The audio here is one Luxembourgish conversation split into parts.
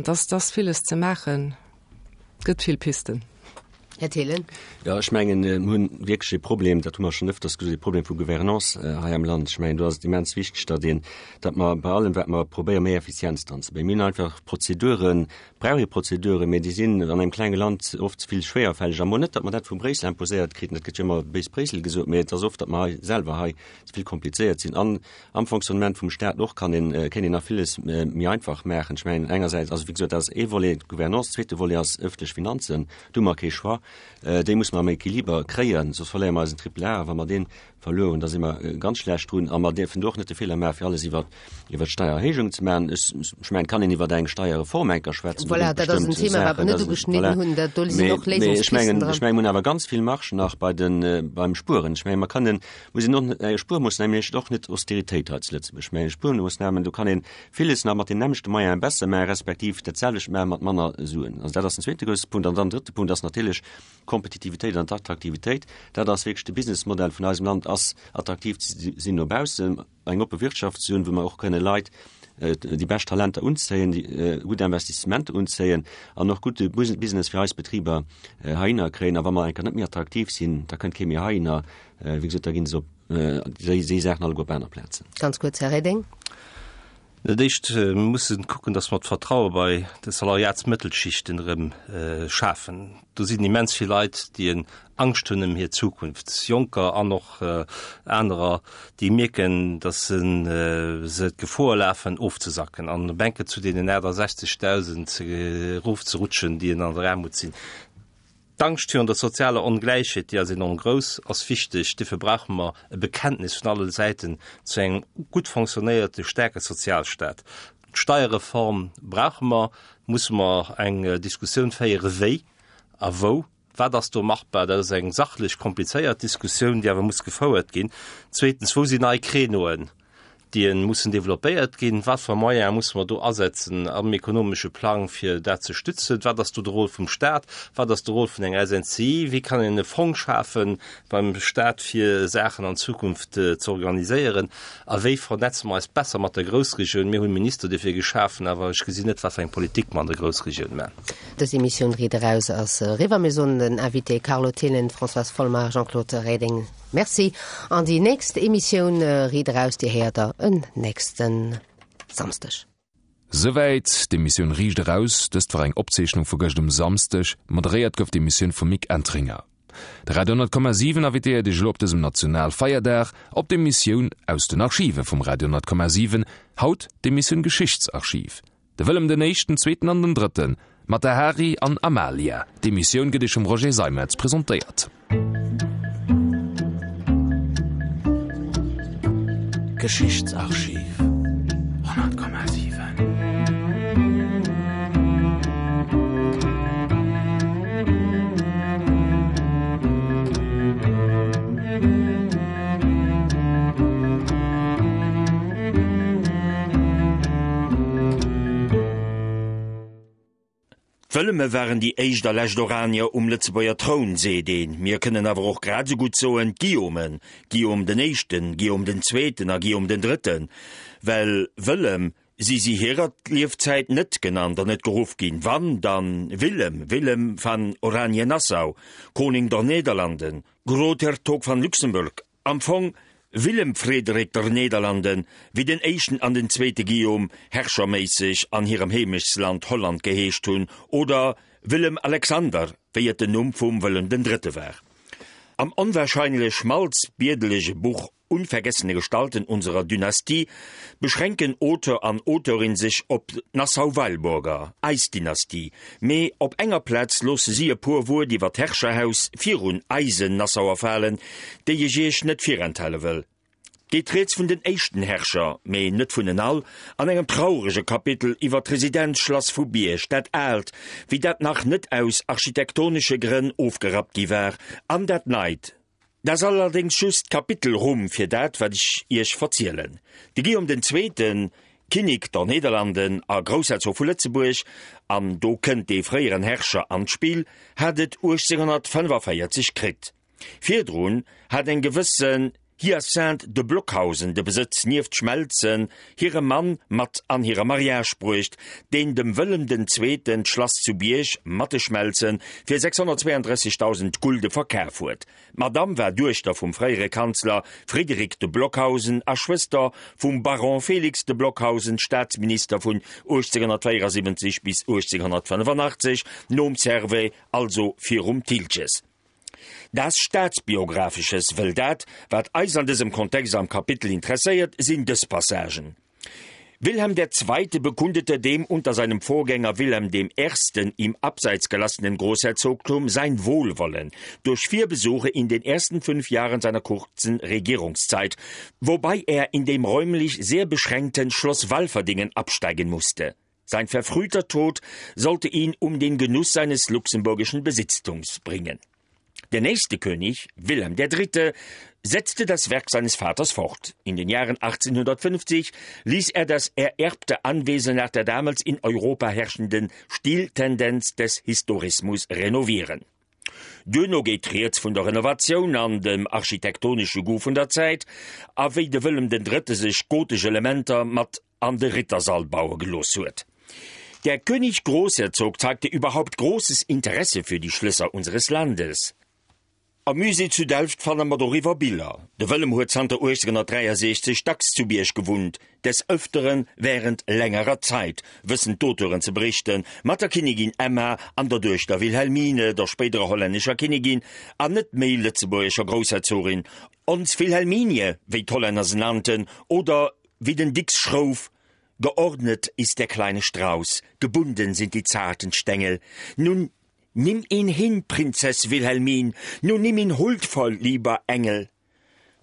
Dass dass villes ze maachen, et gëtt vill Pisten. Här Thelen. Jo, ech mengen, mir hunn wierklech e Problem, dat hu mer schonn ëfters gesot, e Problem vu Gouvernance hei am Land. Ech mengen, do ass et immens wichteg, datt een, datt mer bei allem, wat mer probéieren, méi Effizienz dran ze bréngen. Mir hunn einfach Prozeduren, brauch ee Prozeduren, mä déi sinn an engem klenge Land oft ze vill schwéierfälleg. A mol net, datt mer dat vu Bréissel imposéiert kriten, dat gëtt jo ëmmer béis Bréissel gesot, mä et ass oft, datt mer hei selwer hei ze vill komplizéiert sinn. An am Fonctionnement vum Staat och kann een, kéint een nach villes méi einfach maachen. Ech mengen engersäits, also wéi gesot, dat ass ee Volet, d'Gouvernance, zweete Volet ass ëffentlech Finanzen, do hu mer kee Choix, déi musse mer am Equiliber kréien, soss verléiere mer eisen Triple A. A wa mer dee verluer hunn, da si mer ganz schlecht drun. A mer dierfen do och net de Feeler maachen, fir alles iwwer, iwwer d'Steiererhéijung ze maachen. Ech, ech mengen, et kann een iwwer eng Steierreform enker schwätzen, do Voilà, ginn et dat ass en bestëmmt Thema, wat mer Saachen, net dat, ugeschnidden voilà. hunn, dat, do sinn Mee, och mee ech Léisungspisten mengen, dran. ech mengen, mir hunn awer ganz vill Marge nach bei den, beim Spueren. Ech mengen, mer kënnen, Muss een och net, Spuermoossname heescht och net Austeritéit hei zu Lëtzebuerg, mä Spuermoossnamen, do kann ee villes nach mat den nämmlechte Moyene besser maachen, respektiv dat selwecht maache mat manner Suen. Also dat ass den zweete grousse Punkt. An dann den drëtte Punkt ass natierlech d'Kompetitivitéit an d'Attraktivitéit. Dat ass wierklech de Businessmodell vun eisem Land, ass attraktiv ze sinn no baussen. eng oppe Wirtschaft ze hunn, wou mer och kënne Leit, déi bescht Talenter unzéien, déi gutt Investissementer unzéien an och gudde Business fir eis Betriber heihinner kréien. A wa mer enker net méi attraktiv sinn, da kënnt kee méi heihinner. Wéi gesot, da gi se op déi Saachen alleguer op aner Plazen. Ganz kuerz, Här Reding. Dat Éischt, mir mussen kucken, dass mer d'Vertraue bei de Salariatsmëttelschichten erëm schafen. Do sinn immens vill Leit, déi en Angscht hunn ëm hir Zukunft, Jonker an och anerer, déi mierken, dass se d'Gefor lafen, ofzesacken an op enke zu deenen 68.000 erofzerutschen, déi en an der Aarmut sinn. D'Angscht virun der sozialer Ongläichheet, déi ass enorm grouss, ass wichteg. Duerfir brauche mer e Bekenntnis vun alle Säiten zu engem gutt fonctionnéierte, staarke Sozialstaat. D'Steierreform brauche mer, musse mer eng Diskussioun féiere wéi a wou, wat ass do machbar. Dat ass eng sachlech komplizéiert Diskussioun, déi awer muss gefouert ginn. Zweetens, wou sinn nei Créneauen? déi mussen développéiert ginn, wat fir Moyene musse mer do asetzen am ekonomesche Plang, fir dat ze stützen, wat ass do de Rôle vum Stat, wat ass de Rôle vun enger SNCI, wéi kann een e Fong schafe beim Stat, fir Saachen an Zukunft ze organiséieren a wéi vernetze mer eis besser mat der Groussregioun. Mir hunn Minister dofir geschafen, awer ech gesinn net, wat fir eng Politik mer an der Groussregioun maachen. Dës Emissioun Riit eraus ass eriwwer. Mir soen den Invité Carlo Thelen, Françoise Folmer, Jean-Claude Reding Merci. An déi nächst Emissioun Riit eraus, déi héiert der en nächste Samsdeg. Souwäit d'Emissioun Riicht eraus. Dëst war eng Opzeechnung vu gëscht um Samsdeg. Moderéiert gouf d'Emissioun vum Mick Entringer. De Radio 10,7 invitéiert Iech elo op dësem Nationalfeierdag op d'Emissioun Aus den Archive vum Radio 10,7. Haut d'Emissioun Geschichtsarchiv. De Wëllem den Éischten, Zweeten an den Drëtten, mat der Hari an Amalia. D'Emissioun gëtt Iech vum Roger Seimetz presentéiert. Geschichtsarchiv 100,7. D'Wëlleme waren déi éischt a lescht Oranier um Lëtzebuerger Troun, seet een. Mir kënnen awer och grad esou gutt soen, d'Guillaumen, Guillaume den Éischten, Guillaume den Zweeten a Guillaume den Drëtten. Well Wëllem si si hirer Liefzäit net genannt an net geruff ginn. Wann, dann Willem, Willem van Oranje-Nassau, Koning der Nederlanden, Groothertog van Luxemburg, Am Fong Willem Frederik der Nederlanden, wéi den éischten an den zweete Guillaume herrscherméisseg an hirem Heemechtsland Holland geheescht hunn, oder Willem Alexander, wéi et den Numm vum Wëllem den Drëtte war. Am onwahrscheinlech schmalzbierdelege Buch Unvergessene Gestalten unserer Dynastie beschränken Auteur an Auteurin sech op d'Nassau-Weilburger, eis Dynastie, Mee op enger Plaz loosse si e puer Wuert iwwer d'Herrscherhaus virun eisen Nassauer falen, déi ech iech net virenthale wëll. 't geet rieds vun den éischten Herrscher, mee net vun en all, an engem traurege Kapitel iwwer d'Residenzschlass vu Bierg, dat aalt, wéi dat nach net aus architektonesche Grënn ofgerappt gi war, an dat neit, Dat ass allerdéngs just d'Kapitelrumm fir dat, wat ech Iech verzielen. De Guillaume den Zweeten, Kinnik der Nederlanden a Groussherzog vu Lëtzebuerg, an do kënnt dee fréieren Herrscher an d'Spill, hat et 1845 kritt. Virdrun hat eng gewësse. Hyacinthe de Blockhausen de Besëtz nieft Schmelzen hirem Mann mat an hire Mariage bruecht, deen dem Wëllem den Zweeten d'Schlass zu Bierg mat de Schmelze fir 632.000 Gulde verkaf huet. D'Madamm war Duechter vum fréiere Kanzler Frédéric de Blockhausen a Schwëster vum Baron Félix de Blockhausen, Staatsminister vun 1874 bis 1885, nom Servais, also virum Thiltges. Das Staatsbiographisches, wëll dat, wat eis an dësem Kontext am Kapitel interesséiert, sinn dës Passagen, Wilhelm der Zweite bekundete dem unter seinem Vorgänger Wilhelm dem Ersten ihm abseits gelassenen Großherzogtum sein Wohlwollen durch vier Besuche in den ersten fünf Jahren seiner kurzen Regierungszeit, wobei er in dem räumlich sehr beschränkten Schloss Walferdingen absteigen musste. Sein verfrühter Tod sollte ihn um den Genuss seines luxemburgischen Besitztums bringen. Der nächste König, Wilhelm III., setzte das Werk seines Vaters fort. In den Jahren 1850 ließ er das ererbte Anwesen nach der damals in Europa herrschenden Stiltendenz des Historismus renovieren. Duerno geet rieds vun der Renovatioun an dem architektonesche Goût vun der Zäit, a wéi de Wëllem den Drëtte sech gotesch Elementer mat an de Rittersall baue gelooss huet. Der König Großherzog zeigte überhaupt großes Interesse für die Schlösser unseres Landes. Am Musée zu Delft fanne mer doriwwer Biller. De Wëllem huet zanter 1863 dacks zu Bierg gewunnt, des Ëfteren wärend längerer Zait, wëssen d'Auteuren ze berichten, mat der Kinnigin Emma an der Duechter Wilhelmine, der spéiderer hollännescher Kinnigin an net méi lëtzebuergescher Groussherzogin, ons Wilhelminie, wéi d'Hollänner se nannten, oder wéi den Dicks schrouf, Geordnet ist der kleine Strauß, gebunden sind die zarten Stengel, nun nimm ihn hin, Prinzess Wilhelmine, nun nimm ihn huldvoll, lieber Engel.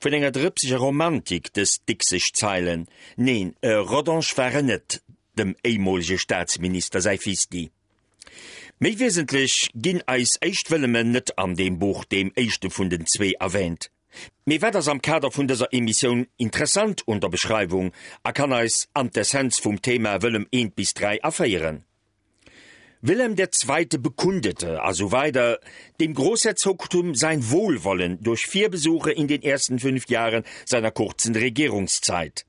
Vun enger drëpseger Romantik dës dickseg Zeilen. Neen, e Rodange war en net, dem éimolege Staatsminister säi Fisti. Méi wiesentlech ginn eis éischt Wëllemen net an deem Buch, deem éischte vun den zwee, erwähnt. Mee wat ass am Kader vun dëser Emissioun interessant un der Beschreiwung a kann eis an d'Essenz vum Thema Wëllem I bis 3 aféieren? Wilhelm der Zweite bekundete a sou weider dem Großherzogtum sein Wohlwollen durch vier Besuche in den ersten fünf Jahren seiner kurzen Regierungszeit.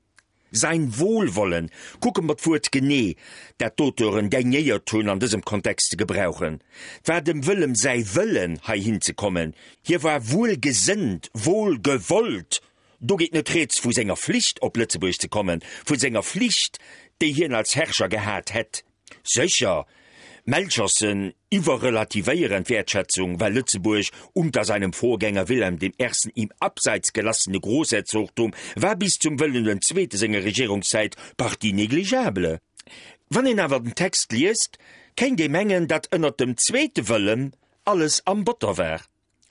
Sein Wohlwollen, kucke mer d'Wuert genee, dat d'Auteuren daignéiert hunn an dësem Kontext ze gebrauchen. 't war dem Wëllem säi Wëllen, heihin ze kommen. Hie war wuelgesënnt, wohlgewollt. Do geet net rieds vu senger Flicht, op Lëtzebuerg ze kommen, vu senger Flicht, déi hien als Herrscher gehat hätt. Sécher, Melchersen iwwerrelativéieren d'Wäertschätzung, well Lëtzebuerg unter seinem Vorgänger Wilhelm dem Ersten ihm abseits gelassene Großherzogtum war bis zum Wëllem den Zweete senger Regierungszäit partie négligeable. Wann een awer den Text liest, kéint ee mengen, datt ënnert dem zweete Wëllem alles am Botter war.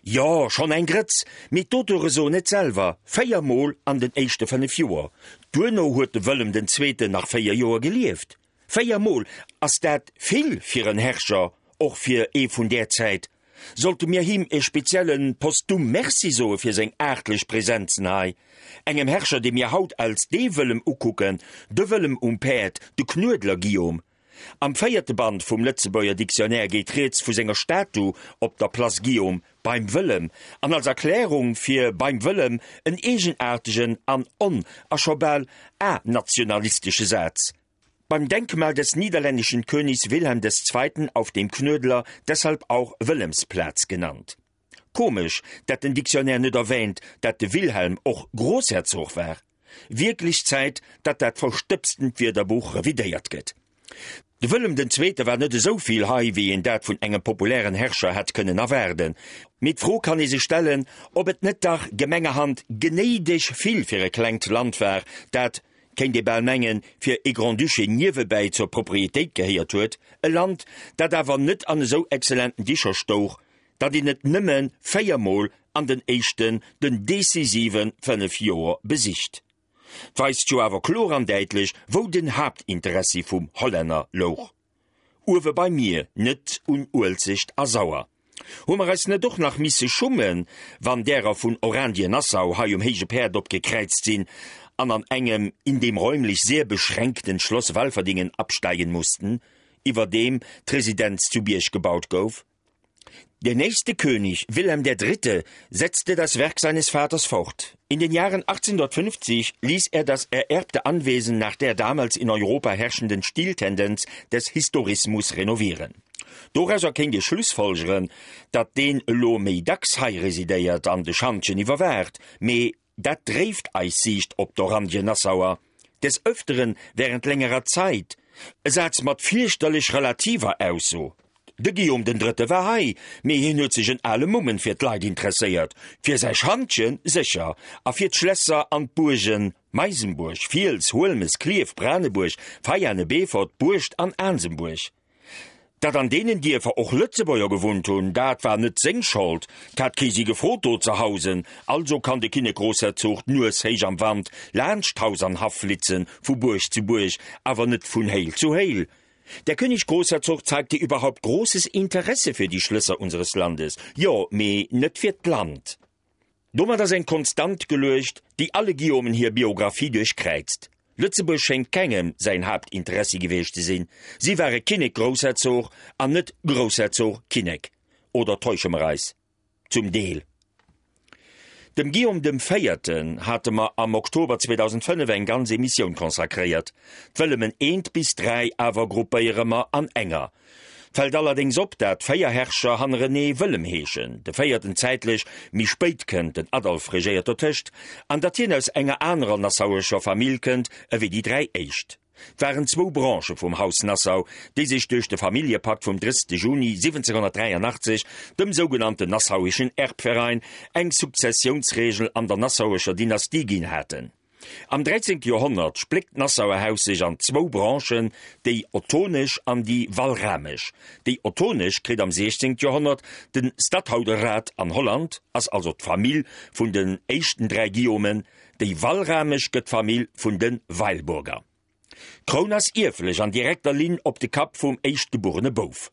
Jo, schonn eng Grëtz, mee d'Auteure soen et selwer, 4 Mol an den éischte 5 Joer. Duerno huet de Wëllem den Zweeten nach 4 Joer gelieft. 4 Mol, ass dat vill fir en Herrscher, och fir ee vun där Zäit? Sollte mir him e spezielle postum Merci soe fir seng aartlech Präsenzen hei? Engem Herrscher, dee mir haut als dee Wëllem ukucken, de Wëllem um Päerd, de Knuedler Guillaume. Am véierte Band vum Lëtzebuerger Dictionnaire geet rieds vu senger Statu op der Place Guillaume beim Wëllem an als Erklärung fir beim Wëllem en eegenaartegen an on a scho bal a-nationalistesche Saz, Beim Denkmal des niederländischen Königs Wilhelm des Zweiten auf dem Knuedler, deshalb auch Wëllemsplatz genannt. Komesch, dat den Dictionnaire net erwähnt, dat de Wilhelm och Großherzog war. Wierklech Zäit, datt dat verstëbstent Wierderbuch revidéiert gëtt. De Wëllem den Zweete war net esou vill hei, wéi een dat vun engem populären Herrscher hätt kënnen erwaarden. Mee d'Fro kann ee sech stellen, ob et net dach gemengerhand genéideg vill fir e klengt Land war, dat, kéint ee bal mengen, fir ee Grand-Duché niewebäi zur Proprietéit gehéiert huet, e Land, dat awer net an esou exzellenten Dicher stouch, datt een et nëmme véiermol an den éischten, den decisive 5 Joer besicht. 't weist jo awer kloer an däitlech, wou den Haaptinteressi vum Hollänner louch. Uewe beim Mier, net un Uelzecht a Sauer. Hu mer eis net och nach misse schummen, wann därer vun Orandien-Nassau hei um héije Päerd opgekräizt sinn an an engem in dem räumlich sehr beschränkten Schloss Walferdingen absteigen mussten, iwwerdeem d'Residenz zu Bierg gebaut gouf? Der nächste König, Wilhelm der Dritte, setzte das Werk seines Vaters fort. In den Jahren 1850 ließ er das ererbte Anwesen nach der damals in Europa herrschenden Stiltendenz des Historismus renovieren. Dorauser kéint ee schlussfolgeren, datt deen elo méi dacks hei residéiert an de Schantjen iwwerwaacht, mee dat dréift eis Siicht op d'Oranjen-Nassauer des Öfteren während längerer Zeit, e Saz mat fierchterlech relativer Ausso. De Guillaume den Drëtte war hei, mee hien huet sech en ale Mummen fir d'Leit interesséiert, fir säi Schantjen sécher, a fir d'Schlässer an d'Buergen, Meisenbuerg, Fiels, Huelmes, Klierf, Branebuerg, Veiane, Beefort, Buerscht an Aansembuerg. Datt an deenen Dierfer och Lëtzebuerger gewunnt hunn, dat war net seng Schold, 't hat kee si gefrot do ze hausen. Also kann de Kinnek-Grossherzog d'Nues héich am Wand laanscht Haus an Haff flitzen, vu Buerg zu Buerg, awer net vun Héil zu Héil. Der König Großherzog zeigte überhaupt großes Interesse für die Schlösser unseres Landes. Jo, mee net fir d'Land. Domat ass eng Konstant geluecht, déi alle Guillaumen hir Biographie duerchkräizt. Lëtzebuerg schéngt kengem säin Haaptinteressi gewiescht ze sinn. Si ware Kinnek-Groussherzog an net Groussherzog-Kinnek. Oder täusche mer eis? Zum Deel. Dem Guillaume dem Véierten hate mer am Oktober 2005 eng ganz Emissioun consacréiert. D'Wëllemen eent bis 3 awer gruppéiere mer an enger. Fält allerdéngs op, dat 4 Herrscher hannerenee Wëllem heeschen, de véierten zäitlech méi spéit kënnt, den Adolf regéiert dotëscht, an datt hien aus enger anerer nassauescher Famill kënnt ewéi déi 3 éischt. 't waren zwou Branchë vum Haus Nassau, déi sech duerch de Familljepakt vum 30 Juni 1783, dem sougenannten Nassauischen Erbverein, eng Sukzessiounsregel an der nassauescher Dynastie ginn haten. Am 13. Joerhonnert spléckt d'Nassauer Haus sech an zwou Branchen, déi ottonesch an déi walramesch. Déi ottonesch kritt am 16. Joerhonnert de Stadhouderrat an Holland, ass also d'Famill vun den éischten dräi Guillaumen, Déi walramesch gëtt d'Famill vun de Weilburger. D'Kroun ass ierflech an direkter Linn op de Kapp vum éischtgebuerene Bouf.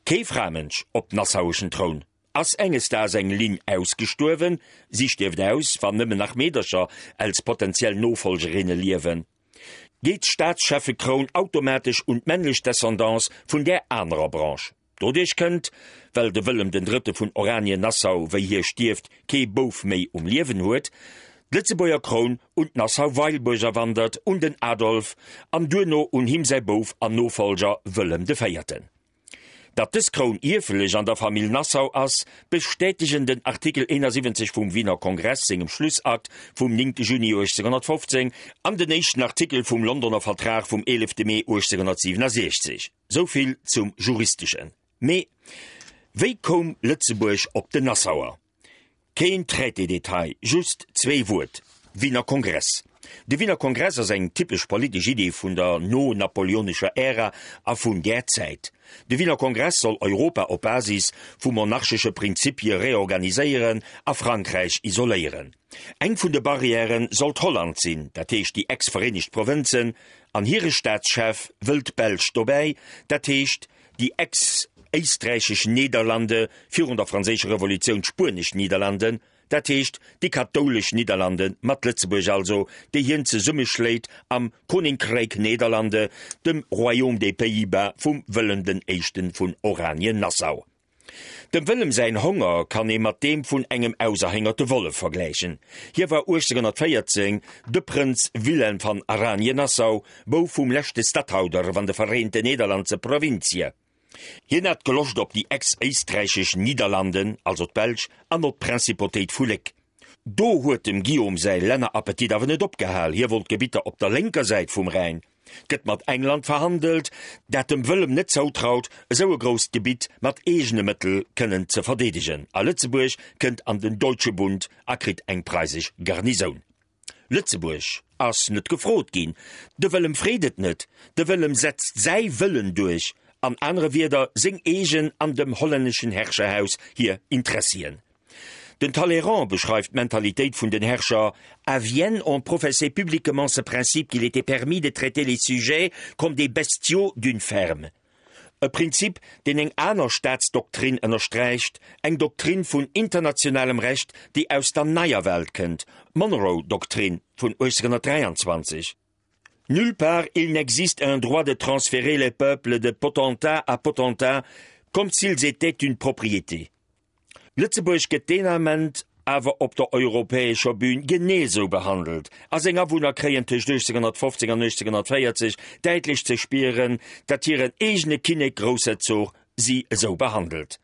Kee Framënsch op nassaueschen Troun. Ass enges Daags eng Linn ausgestuerwen, si stierft aus, wann nëmmen nach Meedercher als potentiell Nofollgerinne liewen, geet d'Staatscheffekroun automatesch un d'männlech Descendance vun där anerer Branche. Doduerch kënnt, well de Wëllem den Drëtte vun Oranien-Nassau, wéi hie stierft, kee Bouf méi um Liewen huet, d'Lëtzebuerger Kroun un d'Nassau-Weilburger wandert, un den Adolf an duerno un him säi Bouf an Nofollger Wëllem de Véierten. Datt dës Kroun ierflech an der Famill Nassau ass, bestätegen den Artikel 71 vum Wiener Kongress sengem Schlussakt vum 9 Juni 1815 an den éischten Artikel vum Londoner Vertrag vum 11 Mee 1867. Sou vill zum Juristeschen. Mee wéi koum Lëtzebuerg op den Nassauer? Keen Traité-Detail, just zwee Wuert, Wiener Kongress. De Wiener Kongress ass eng typesch politesch Idee vun der no-napoleonescher Ära a vun där Zäit. De Wiener Kongress soll Europa op Basis vu monarchesche Prinzipie reorganiséieren a Frankräich isoléieren. Eng vun de Barrièrë sollt Holland sinn, dat heescht déi ex-Vereenegt Provënzen, An hire Staatschef wëll d'Belsch dobäi, dat heescht déi ex-éisträichesch Nederlande, virun der Franséischer Revolutioun d'spuenesch Niederlanden, dat heescht déi kathoulesch Nidderlande mat Lëtzebuerg also, déi hien zesummeschléit am Koninkrijk Nederlande, dem Royaume des Pays-Bas vum Wëllem den Éischten vun Oranien-Nassau. Dem Wëllem säin Honger kann ee mat deem vun engem auserhéngerte Wollef vergläichen. Hie war 1814 de Prënz Wilhelm van Aranien-Nassau, Bouf vum leschte Stadhouder van de Vereente Nederlandse Provincië. Hien hat Geloscht op déi ex-éisträichesch Niederlanden, also d'Belsch, an op d'Principotéit vu Léck. Do huet dem Guillaume säi Lännerappetit awer net opgehal, hie wollt Gebitter op der lénker Säit vum Rhäin. Gëtt mat England verhandelt, dat dem Wëllem net zoutraut, esou e grousst Gebitt mat eegene Mëttel kënnen ze verdeedegen, a Lëtzebuerg kënnt an den Deutsche Bund a kritt eng preisesch Garnisoun. Lëtzebuerg ass net gefrot ginn. De Wëllem freet et net. De Wëllem setzt säi Wëllen duerch, an anere Wierder seng eegen an dem hollänneschen Herrscherhaus hir Interessien. Den Talleyrand beschreift d'Mentalitéit vun den Herrscher, À Vienne, on professait publiquement ce principe qu'il était permis de traiter les sujets comme des bestiaux d'une ferme. E Prinzip, deen eng aner Staatsdoktrin ënnersträicht, eng Doktrin vun internationalem Recht, déi aus der Neier Welt kënnt, d'Monroe-Doktrin vun 1823. Nulle part il n'existe un droit de transférer les peuples de potentat à potentat. Comme s'ils étaient une propriété. Lëtzebuerg gëtt deen Ament awer op der europäescher Bühn genee sou behandelt a seng Awunner kréien tëscht 1815 an 1840 däitlech ze spieren, datt hiren eegene Kinnek-Groussherzog si esou behandelt.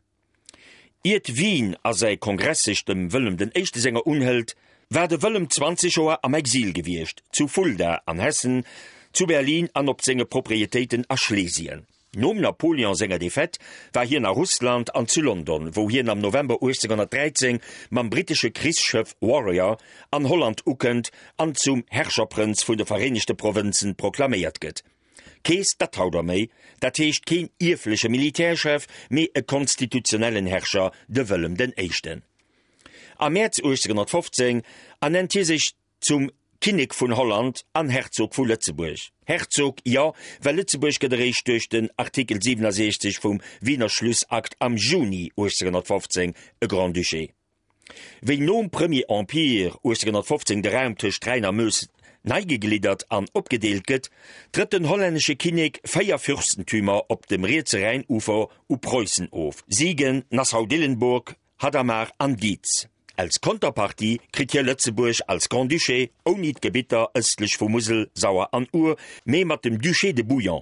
Iert Wien a säi Kongress sech dem Wëllem den Éischte senger unhëlt, war de Wëllem 20 Joer am Exil gewiescht, zu Fulda an Hessen, zu Berlin an op senge Proprietéiten a Schlesien. Nom Napoleon senger Defaite war hien a Russland an zu London, wou hien am November 1813 mam brittesche Krichsschëff Warrior an Holland ukënnt an zum Herrscherprënz vun de Vereenegte Provënzen proklaméiert gëtt. Kee Statthalter méi, dat heescht keen ierfleche Militärchef, mee e konstitutionellen Herrscher, de Wëllem den Éischten. Am Mäerz 1815 ernennt hie sech zum Kinnek vun Holland an Herzog vu Lëtzebuerg. Herzog, jo, well Lëtzebuerg gëtt eréischt duerch den Artikel 67 vum Wiener Schlussakt am Juni 1815 e Grand-Duché. Wéi nom Premier Empire 1815 de Raum tëscht Rhäin a Meuse nei gegliddert an opgedeelt gëtt, trëtt den hollännesche Kinnek 4 Fürstentümer op dem rietse Rhäinufer u Preussen of, Siegen, Nassau-Dillenburg, Hadamar an Dietz. Als Konterpartie kritt hie Lëtzebuerg als Grand-Duché, ouni d'Gebitter ëstlech vu Musel, Sauer an Our, mee mat dem Duché de Bouillon.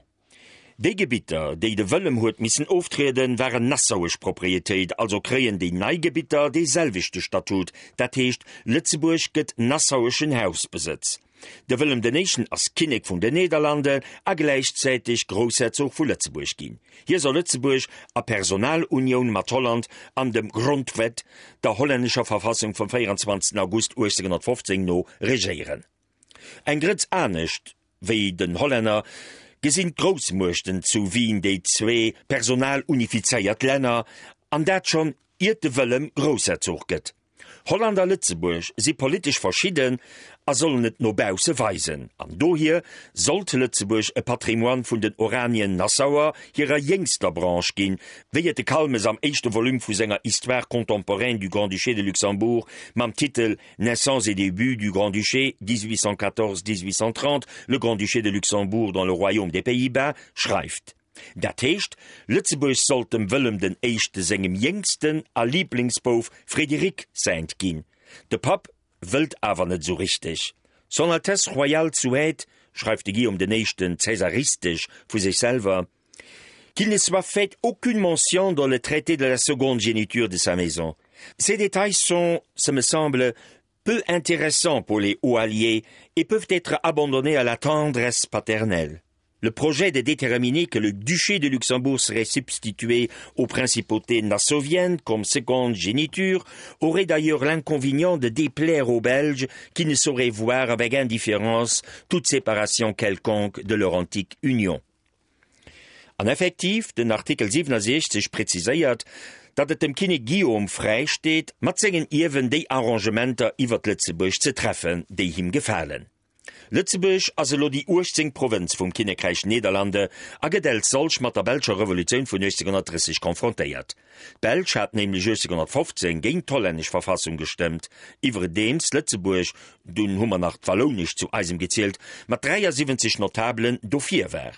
Déi Gebitter, déi de Wëllem huet missen oftrieden, waren nassauesch Proprietéit, also kréien déi nei Gebitter dee selwechte Statut, dat heescht Lëtzebuerg gëtt nassaueschen Hausbesëtz. De Wëllem den Éischten ass Kinnek vun den Nederlande a gläichzäiteg Groussherzog vu Lëtzebuerg ginn. Hie soll Lëtzebuerg a Personalunioun mat Holland an dem Grondwet, der hollännescher Verfassung vum 24 August 1815 no regéieren. Eng Grëtz anescht wéi den Hollänner gesinn d'Groussmuechten zu Wien déi zwee personalunifizéiert Länner, an dat schonn iert de Wëllem Groussherzog gëtt. Holland a Lëtzebuerg si politesch verschidden a sollen et no bausse weisen. An dohier sollt Lëtzebuerg e Patrimoine vun den Oranien-Nassauer hirer jéngster Branche ginn, wéi et de Calmes am éischte Volume vu senger Histoire contemporaine du Grand-Duché de Luxembourg mam Titel Naissance et débuts du Grand-Duché, 1814-1830, le Grand-Duché de Luxembourg dans le Royaume des Pays-Bas schreift. Dat heescht, Lëtzebuerg sollt dem Wëllem den Éischte sengem jéngsten a Liiblingsbouf Frédéric säint ginn. De Papp wëllt awer net esou richteg. Son Altesse Royale souhaite, schreift de Guillaume den Éischten cäsaristesch vu sech selwer, qu'il ne soit fait aucune mention dans le traité de la seconde géniture de sa maison. Ces détails sont, ce me semble, peu intéressants pour les hauts alliés et peuvent être abandonnés à la tendresse paternelle. Le projet de déterminer que le duché de Luxembourg serait substitué aux principautés nassoviennes comme seconde géniture aurait d'ailleurs l'inconvénient de déplaire aux Belges qui ne sauraient voir avec indifférence toute séparation quelconque de leur antique union. An effektiv, den Artikel 67 präziséiert, datt et dem Kinnek Guillaume fräi steet, mat sengen Ierwen déi Arrangementer iwwert Lëtzebuerg ze treffen, déi him gefalen. Lëtzebuerg ass elo déi 18. Provënz vum Kinnekräich Nederlande a gëtt els solch mat der belscher Revolutioun vun 1830 konfrontéiert. D'Belsch hat nämlech 1815 géint d'hollännesch Verfassung gestëmmt, iwwredeems Lëtzebuerg, dunn hu mer nach d'Wallounesch zu eisem gezielt, mat 73 Notabelen dofir war.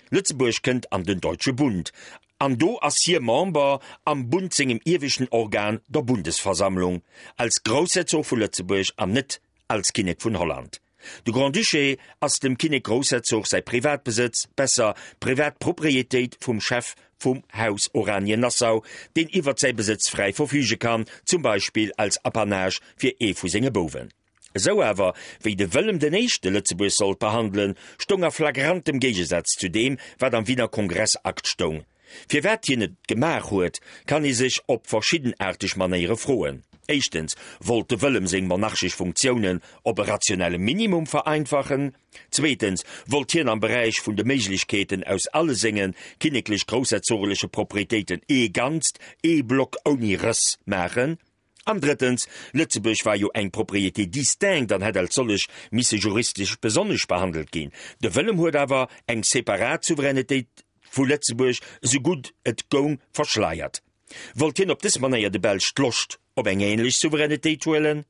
Lëtzebuerg kënnt an den Deutsche Bund, an do ass hie Member am Bund sengem ieweschten Organ, der Bundesversammlung, als Groussherzog vu Lëtzebuerg an net als Kinnek vun Holland. De Grand-Duché ass dem Kinnek-Groussherzog säi Privatbesëtz, besser, Privatproprietéit vum Chef vum Haus Oranien-Nassau, deen iwwert säi Besëtz fräi verfüge kann, zum Beispill als Apanage fir ee vu senge Bouwen. Esou awer, wéi de Wëllem den Éischte Lëtzebuerg sollt behandelen, stoung a flagrantem Géigesaz zu deem, wat am Wiener Kongressakt stoung. Firwat hien et gemaach huet, kann ee sech op verschiddenaarteg Manéiere froen. Éischtens wollt de Wëllem seng monarchesch Funktiounen op e rationelle Minimum vereinfachen. Zweetens wollt hien am Beräich vun de Méiglechkeeten aus alle senge kinneklech-groussherzogeleche Proprietéiten ee Ganzt, ee Block ouni Rëss maachen. An drëttens, Lëtzebuerg war jo eng Propriété distincte an hätt als sollech misse juristesch besonnesch behandelt ginn. De Wëllem huet awer eng separat Souveränetéit vu Lëtzebuerg esou gutt et goung verschleiert. Wollt hien op dës Manéier de Belsch d'Loscht op eng ähnlech Souveränetéit huelen?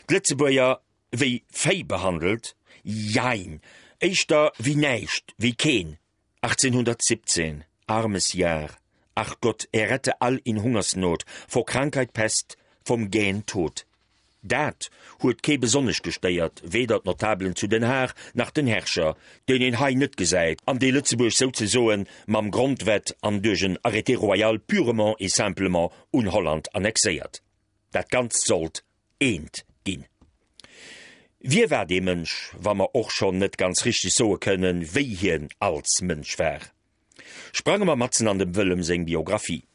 D'Lëtzebuerger wéi Véi behandelt? Jein, éischter wéi näischt, wéi keen. 1817, armes Jahr! Ach Gott, errette all in Hungersnot, vor Krankheit, Pest, vom gähen Tod. Dat huet kee besonnesch gestéiert, weder d'Notabelen zu Den Haag nach den Herrscher, deen een hei net gesäit an dee Lëtzebuerg souzesoen mam Grondwett an duerch en Arrêté royal purement et simplement un Holland annexéiert. Dat Ganzt sollt eent ginn. Wie war dee Mënsch, wa mer och schonn net ganz richteg soe kënnen, wéi hien als Mënsch war? Sprange mer matzen an dem Wëllem seng Biographie.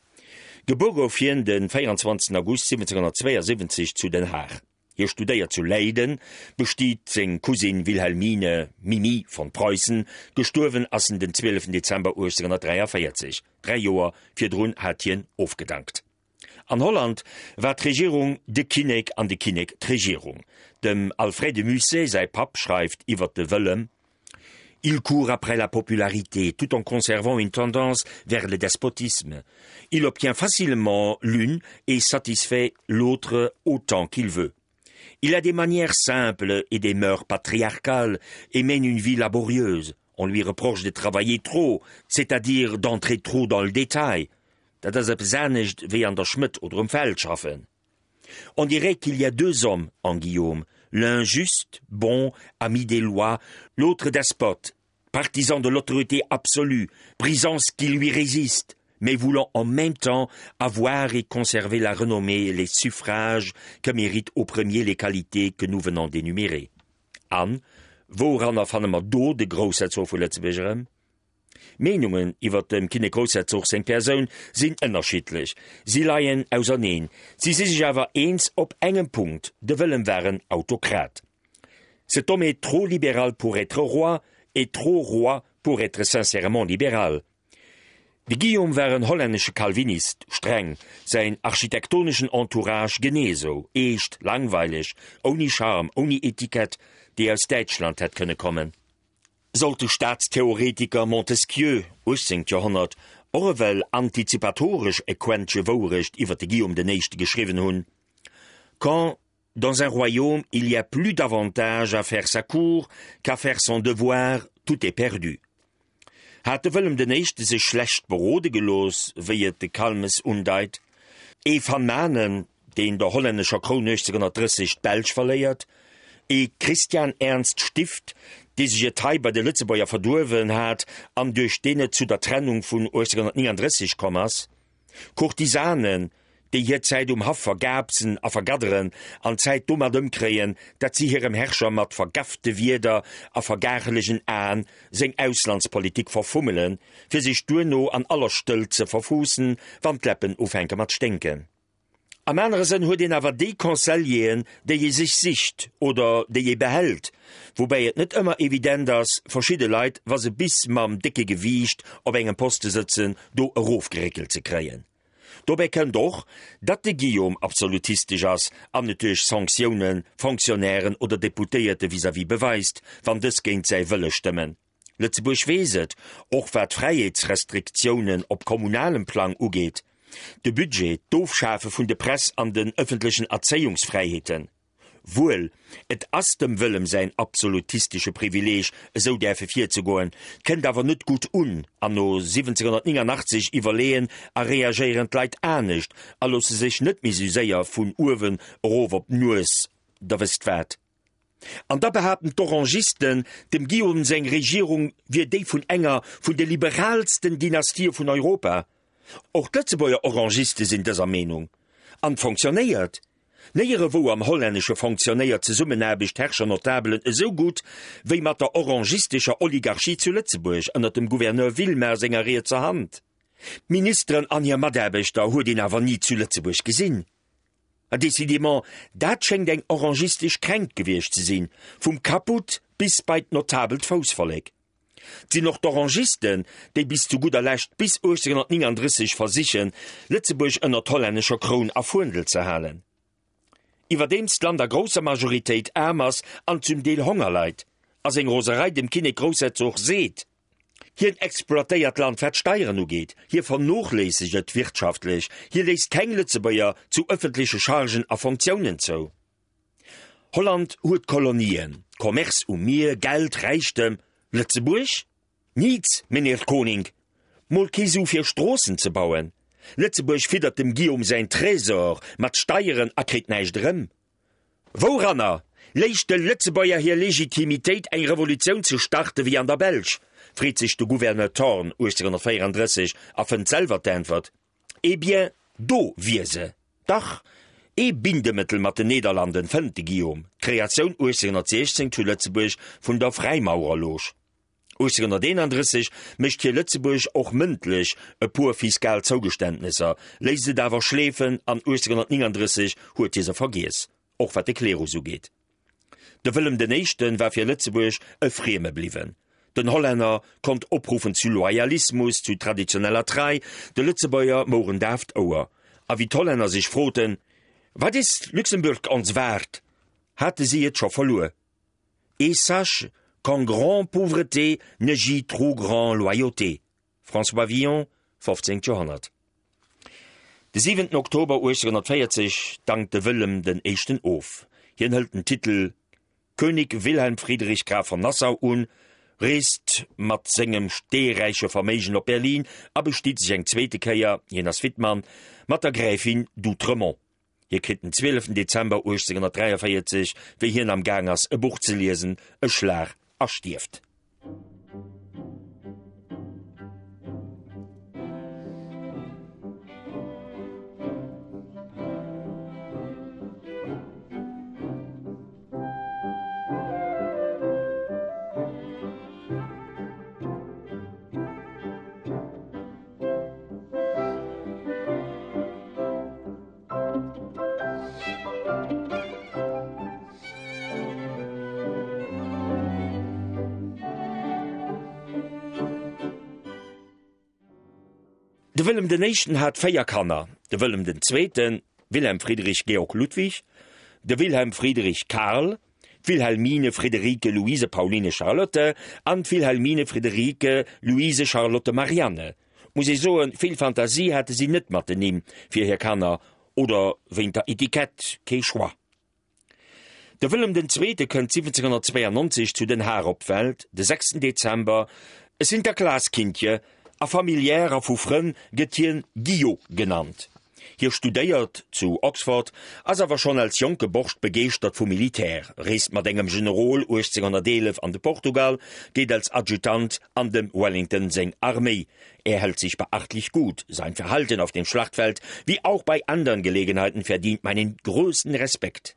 Gebuer gouf hien de 24 August 1772 zu Den Haag. Hie studéiert zu Leiden, bestiet seng Cousine Wilhelmine, Mimi, von Preußen. Gestuerwen ass en den 12 Dezember 1843, dräi Joer virdrun hat hien ofgedankt. An Holland war d'Regierung de Kinnek an de Kinnek d'Regierung. Dem Alfred de Musset säi Papp schreift iwwer de Wëllem, Il court après la popularité tout en conservant une tendance vers le despotisme. Il obtient facilement l'une et satisfait l'autre autant qu'il veut. Il a des manières simples et des mœurs patriarcales et mène une vie laborieuse. On lui reproche de travailler trop, c'est-à-dire d'entrer trop dans le détail. Dat ass eppes anescht wéi an der Schmëdd oder um Feld schaffen. On dirait qu'il y a deux hommes en Guillaume, l'un juste, bon, ami des lois, l'autre despote, partisan de l'autorité absolue, brisant ce qui lui résiste, mais voulant en même temps avoir et conserver la renommée et les suffrages que méritent au premier les qualités que nous venons d'énumérer. An wouranner fanne mer do de Groussherzog vu Lëtzebuerg erëm? D'Meenungen iwwer dem Kinnek-Groussherzog seng Persoun sinn ënnerschiddlech, si leien auserneen. Si si sech awer eens op engem Punkt, de Wëllem war en Autokrat. Cet homme est trop libéral pour être roi et trop roi pour être sincèrement libéral. De Guillaume war en hollännesche Calvinist, streng, säin architektoneschen Entourage genee esou, eescht, langweileg, ouni Charme, ouni Etikett, déi aus Däitschland hätt kënne kommen. Sollt de Staatstheoretiker Montesquieu, 18. Joerhonnert, och ewell antizipatoresch e Quäntche Wourecht iwwer de Guillaume den Éischte geschriwwen hunn, Quand dans un royaume il y a plus d'avantage à faire sa cour qu'à faire son devoir, tout est perdu. Hat de Wëllem den Éischte sech schlecht berode gelooss, wéi et de Calmes undeit? Ee Van Manen, deen der hollännescher Kroun 1830 d'Belsch verléiert, ee Christian Ernst Stift, dee sech et hei bei de Lëtzebuerger verduerwen hat an duerch deen et zu der Trennung vun 1839 komm ass, Courtisanen, déi hir Zäit um Haff vergaapsen a vergadderen an d'Zäit domat ëmkréien, dat si hirem Herrscher mat vergafte Wierder a vergaachelegen Aen seng Auslandspolitik verfummelen, fir sech duerno an aller Stëllt ze verfuussen, wann d'Läppen ufänke mat sténken. Am anere Sënn huet een awer déi Conseilleren, déi ee sech sicht oder déi ee behält, woubäi et net ëmmer evident ass, verschidde Leit, wa se bis mam décke Gewiicht op engem Poste sëtzen, do erofgeréckelt ze kréien. Dobäi kënnt och, datt de Guillaume absolutistesch ass an et duerch Sanctiounen Fonctionnairen oder Deputéierte vis-à-vis beweist, wann dës géint säi Wëlle stëmmen. Lëtzebuerg weess et, och wat d'Fräiheetsrestriktiounen op kommunalem Plang ugeet, de Budget, d'Ofschafe vun de Press an den ëffentlechen Erzéiungsfräiheeten. Wuel, et ass dem Wëllem säin absolutistesche Privileeg, esou däerfe virzegoen, kënnt awer net gutt un, an no 1789 iwwerleeën a reagéieren d'Leit anescht a loosse sech net méi sou séier vun uewen erof op d'Nues, der wësst wat. An da behaapten d'Orangisten, dem Guillaume seng Regierung wier déi vun enger vun de liberaalsten Dynastië vun Europa. Och d'Lëtzebuerger Orangiste sinn dëser Meenung. An fonctionnéiert. Néierewou am Hollännesche fonctionnéiert d'Zesummenaarbecht Herrscher-Notabelen esou gutt wéi mat der orangistescher Oligarchie zu Lëtzebuerg ënner dem Gouverneur Villemain senger rietser Hand. D'Ministeren an hir Mataarbechter huet een awer ni zu Lëtzebuerg gesinn. A décidément, dat schéngt eng orangistesch Kränkt gewiescht ze sinn, vum Caput bis bei d'notabelt Foussvollek. 't sinn och d'Orangisten, déi bis zu gudder Lescht, bis 1839 versichen, Lëtzebuerg ënner d'hollännescher Kroun a Fuendel ze halen. Iwwerdeems d'Land a grousser Majoritéit aarm ass an zum Deel Honger leit, a seng Roserei dem Kinnek-Groussherzog seet, Hien exploitéiert d'Land wat d'Steieren ugeet, hie vernochléissegt et wirtschaftlech, hie léisst keng Lëtzebuerger zu ëffentleche Chargen a Fonctiounen zou. Holland huet Kolonien, Commerce um Mier, Geld, Räichtem. Lëtzebuerg? Niets, meneer Koning! Mol kee Su fir Stroossen ze bauen. Lëtzebuerg fiddert dem Guillaume säin Trésor mat Steieren a kritt näischt erëm. Wouranner léich de Lëtzebuerger hir Legitimitéit eng Revolutioun ze starte wéi an der Belsch? freet sech de Gouverneur Thorn 1834 a fënnt selwer d'Äntwert, Eh bien, do wier se dach! Ee Bindemëttel mat den Nederlanden fënnt de Guillaume, d'Kreatioun 1816 zu Lëtzebuerg vun der Fräimaurerloge. 1831 mécht hie Lëtzebuerg och mëndlech e puer fiskal Zougeständnesser, léisst et awer schleefen an 1839 huet hie se vergiess, och wat de Klerus ugeet. De Wëllem den Éischte war fir Lëtzebuerg e Frieme bliwwen. Den Hollänner konnt opruffen zu Loyalismus, zu traditioneller Trei, de Lëtzebuerger mouren daaft Ouer. A wéi d'Hollänner sech froten, Wat is Luxemburg ons waard? hate si et scho verluer. Et sache qu'en grand pauvreté ne gît trop grand loyauté. François Villon, 15. Joerhonnert. De 7 Oktober 1840 dankt de Wëllem den Éischten of. Hien hëlt den Titel König Wilhelm Friedrich Graf von Nassau un, reest mat sengem steeräiche Verméigen op Berlin a bestiet sech eng zweete Kéier, hien ass Wittmann, mat der Gräfin d'Outremont. Hie kritt den 12 Dezember 1843, wéi hien am Gaang ass e Buch ze liesen, e Schlag a stierft. De Wëllem den Éischten hat 4 Kanner, de Wëllem den Zweeten, Wilhelm Friedrich Georg Ludwig, de Wilhelm Friedrich Karl, d'Wilhelmine Friederike Luise Pauline Charlotte an d'Wilhelmine Friederike Luise Charlotte Marianne. Muss ee soen, vill Fantasie hate si net mat den Nimm fir hir Kanner, oder wéint der Etikett, kee Choix. De Wëllem den Zweete kënnt 1792 zu Den Haag op d'Welt, de sechsten Dezember, e Sinterklaaskindje, a familiär a vu Frënn gëtt hien Guillot genannt. Hie studéiert zu Oxford, ass awer schonn als jonke Borscht begeeschtert vum Militär, reest mat engem Generol 1811 an de Portugal, geet als Adjutant an dem Wellington seng Arméi. Er hält sich beachtlich gut, sein Verhalten auf dem Schlachtfeld wie auch bei andern Gelegenheiten verdient meinen größten Respekt.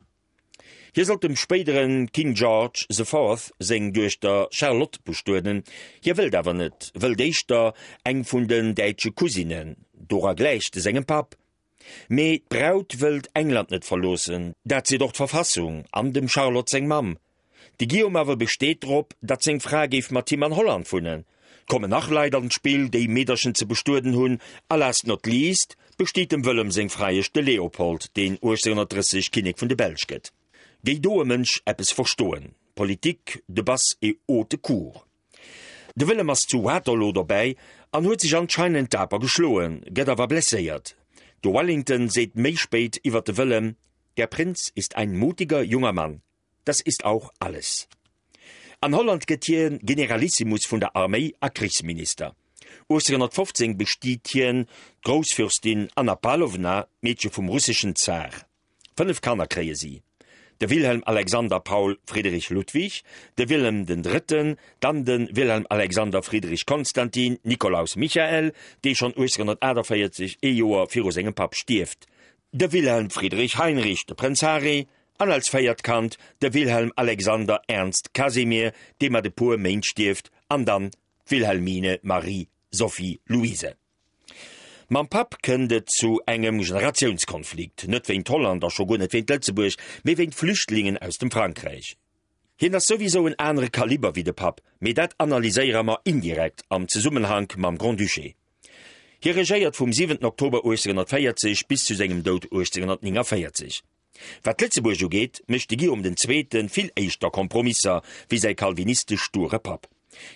Hie sollt dem spéidere King George the Fourth seng Duechter Charlotte bestueden. Hie wëllt awer net, wëllt éischter eng vun den däitsche Cousinen, dora gläicht e sengem Papp. Mee d'Braut wëllt England net verloossen, dat seet och d'Verfassung an dem Charlotte seng Mamm. De Guillaume awer besteet drop, datt seng Fra géif mat him an Holland wunnen. Kommen nach Leit an d'Spill, déi Meederchen ze bestueden hunn, a last not least besteet dem Wëllem seng Freiesch de Leopold, deen 1830 Kinnek vun de Belsch gëtt. Géi do e Mënsch eppes verstoen? Politique de basse et haute cour. De Wëllem ass zu Waterloo dobäi an huet sech anscheinend daper geschloen, gëtt awer blesséiert. De Wellington seet méi spéit iwwer de Wëllem, Der Prinz ist ein mutiger junger Mann. Das ist auch alles. An Holland gëtt hie Generalissimus vun der Arméi a Krichsminister. 1815 bestiet hien d'Groussfürstin Anna Pawlowna, d'Meedche vum russeschen Zar. 5 Kanner kréie si, de Wilhelm Alexander Paul Friedrich Ludwig, de Wilhelm den Drëtten, dann de Wilhelm Alexander Friedrich Konstantin Nikolaus Michael, dee schonn 1848, ee Joer viru sengem Papp, stierft, de Wilhelm Friedrich Heinrich, de Prënz Harry, an als véiert Kand de Wilhelm Alexander Ernst Casimir, dee mat e puer Méint stierft, an dann d'Wilhelmine Marie Sophie Louise. Mam Papp kënnt et zu engem Generatiounskonflikt, net wéint Holland a scho guer net wéint Lëtzebuerg, mee wéint Flüchtlingen aus dem Frankräich. Hien ass souwisou en anere Kaliber wéi de Papp, mee dat analyséiere mer indirekt am Zesummenhank mam Grand-Duché. Hie regéiert vum 7 Oktober 1840 bis zu sengem Doud 1849. Wat Lëtzebuerg ugeet, mécht de Guillaume den Zweete vill éischter Kompromisser wéi säi kalvinistesch sture Papp.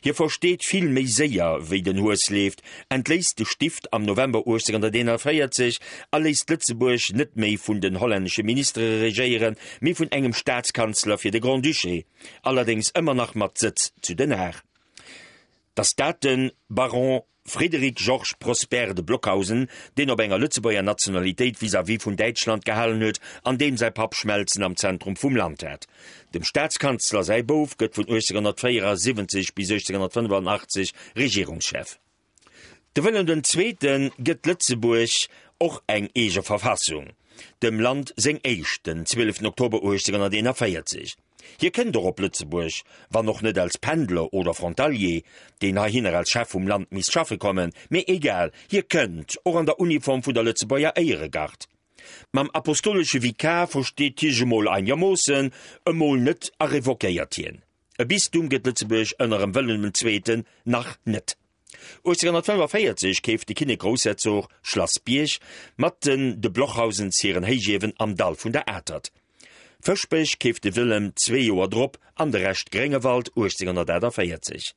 Hie versteet vill méi séier, wéi den Hues leeft, entléisst de Stift am November 1841 a léisst Lëtzebuerg net méi vun den hollännesche Ministere regéieren, mee vun engem Staatskanzler fir de Grand-Duché, allerdéngs ëmmer nach mat Sëtz zu Den Haag. Dass dat de Baron. Frédéric Georges Prosper de Blockhausen, deen op enger Lëtzebuerger Nationalitéit vis-à-vis vun Däitschland gehalen huet an deem säi Papp Schmelzen am Zentrum vum Land hat. Dem Staatskanzler säi Bouf gëtt vun 1874 bis 1885 Regierungschef. De Wëllem den Zweete gëtt Lëtzebuerg och eng eege Verfassung, dem Land seng éischt, den 12 Oktober 1841. Hie kënnt och op Lëtzebuerg, wann och net als Pendler oder Frontalier, deen heihinner als Chef vum Land misst schaffe kommen, mee egal, hie kënnt, och an der Uniform vun der Lëtzebuerger Éieregard. Mam apostolesche Vikar versteet hie sech emol einegermoossen, emol net a revoquéiert hien. E Bistum gëtt Lëtzebuerg ënner em Wëllem den Zweeten nach net. 1845 keeft de Kinnek-Groussherzog Schlass Bierg mat den de Blochhausens hiren Héichiewen am Dall vun der Atert. Fëschbech keeft de Wëllem zwee Joer drop an de Rescht Gréngewald 1848.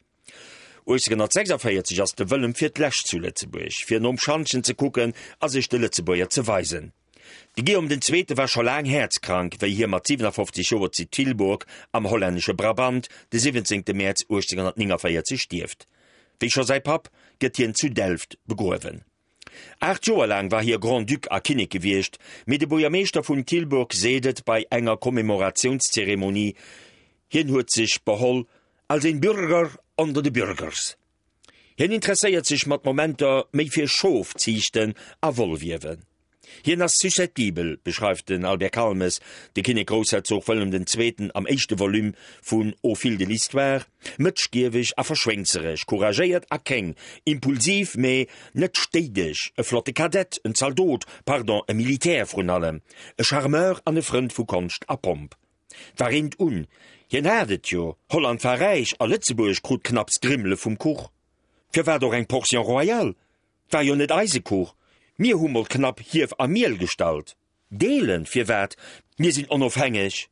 1846 ass de Wëllem fir d'lescht zu Lëtzebuerg, fir nom Schantjen ze kucken a sech de Lëtzebuerger ze weisen. De Guillaume den Zweete war scho laang häerzkrank, wéi hie mat 57 Joer zu Tilburg am hollännesche Brabant de 17. Mäerz 1849 stierft. Wéi scho säi Papp gëtt hien zu Delft begruewen. Aacht Joer laang war hie Grand-Duc a Kinnek gewiescht, mee de Buergermeeschter vun Tilburg seet et bei enger Commémoratiounszeremonie, hien huet sech beholl als een Bürger onder de Bürgers. Hien interesséiert sech mat Momenter méi fir Schofziichten a Wollwiewen. Hien ass susceptibel, beschreift den Albert Calmes de Kinnek-Groussherzog Wëllem den Zweeten am éischte Volume vun Au fil de l'histoire, mëtschgieweg a verschwéngzereg, couragéiert a kéng, impulsiv, mee net stéideg, e flotte Kadett, en Zaldot, pardon, e Militär vrun allem, e Charmeur an e Frënd vu Konscht a Pomp. War eent un, hien hat et jo, Holland war räich a Lëtzebuerg krut knapps Grimmele vum Kuch. Firwat och eng Portion royale? War jo net eise Kuch, mir hu mol knapp Hief a Miel gestallt. Deelen, firwat? Mir sinn onofhängeg.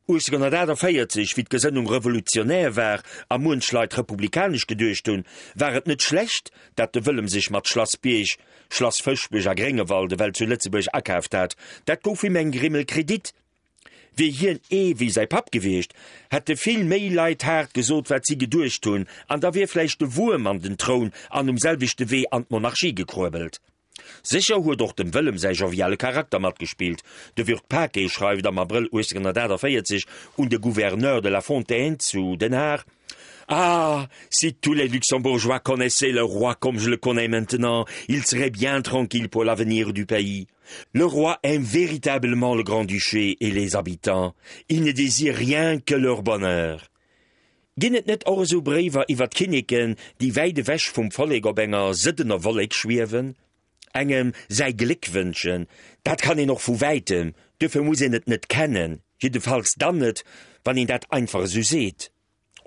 1848, wéi d'Gesënnung revolutionär war a muench Leit republikanesch geduecht hunn, war et net schlecht, dat de Wëllem sech mat Schlass Bierg, Schlass Fëschbech a Gréngewald ewell zu Lëtzebuerg akaaft hat. Dat gouf him eng Grimmel Kredit. Wier hien ee wéi säi Papp gewiescht, hätte vill méi Leit haart gesot, wat si geduecht hunn, an da wier vläicht de Wuerm an den Troun an um selwechte Wee an d'Monarchie gekruebelt. Sécher huet och dem Wëllem säi joviale Charakter matgespillt. De Würth-Paquet schreift am Abrëll 1848 un de Gouverneur de la Fontaine zu Den Haag, Ah! Si tous les Luxembourgeois connaissaient le roi comme je le connais maintenant, ils seraient bien tranquilles pour l'avenir du pays. Le roi aime véritablement le Grand-Duché et les habitants, il ne désire rien que leur bonheur. Ginn et net och esou Bréiwer iwwer d'Kinneken, déi wäit ewech vum Vollek op enger sëddener Wollek schwiewen? Engem säi Gléck wënschen, dat kann een och vu wäitem, duerfir muss een et net kennen, jiddefalls dann net, wann een dat einfach esou seet.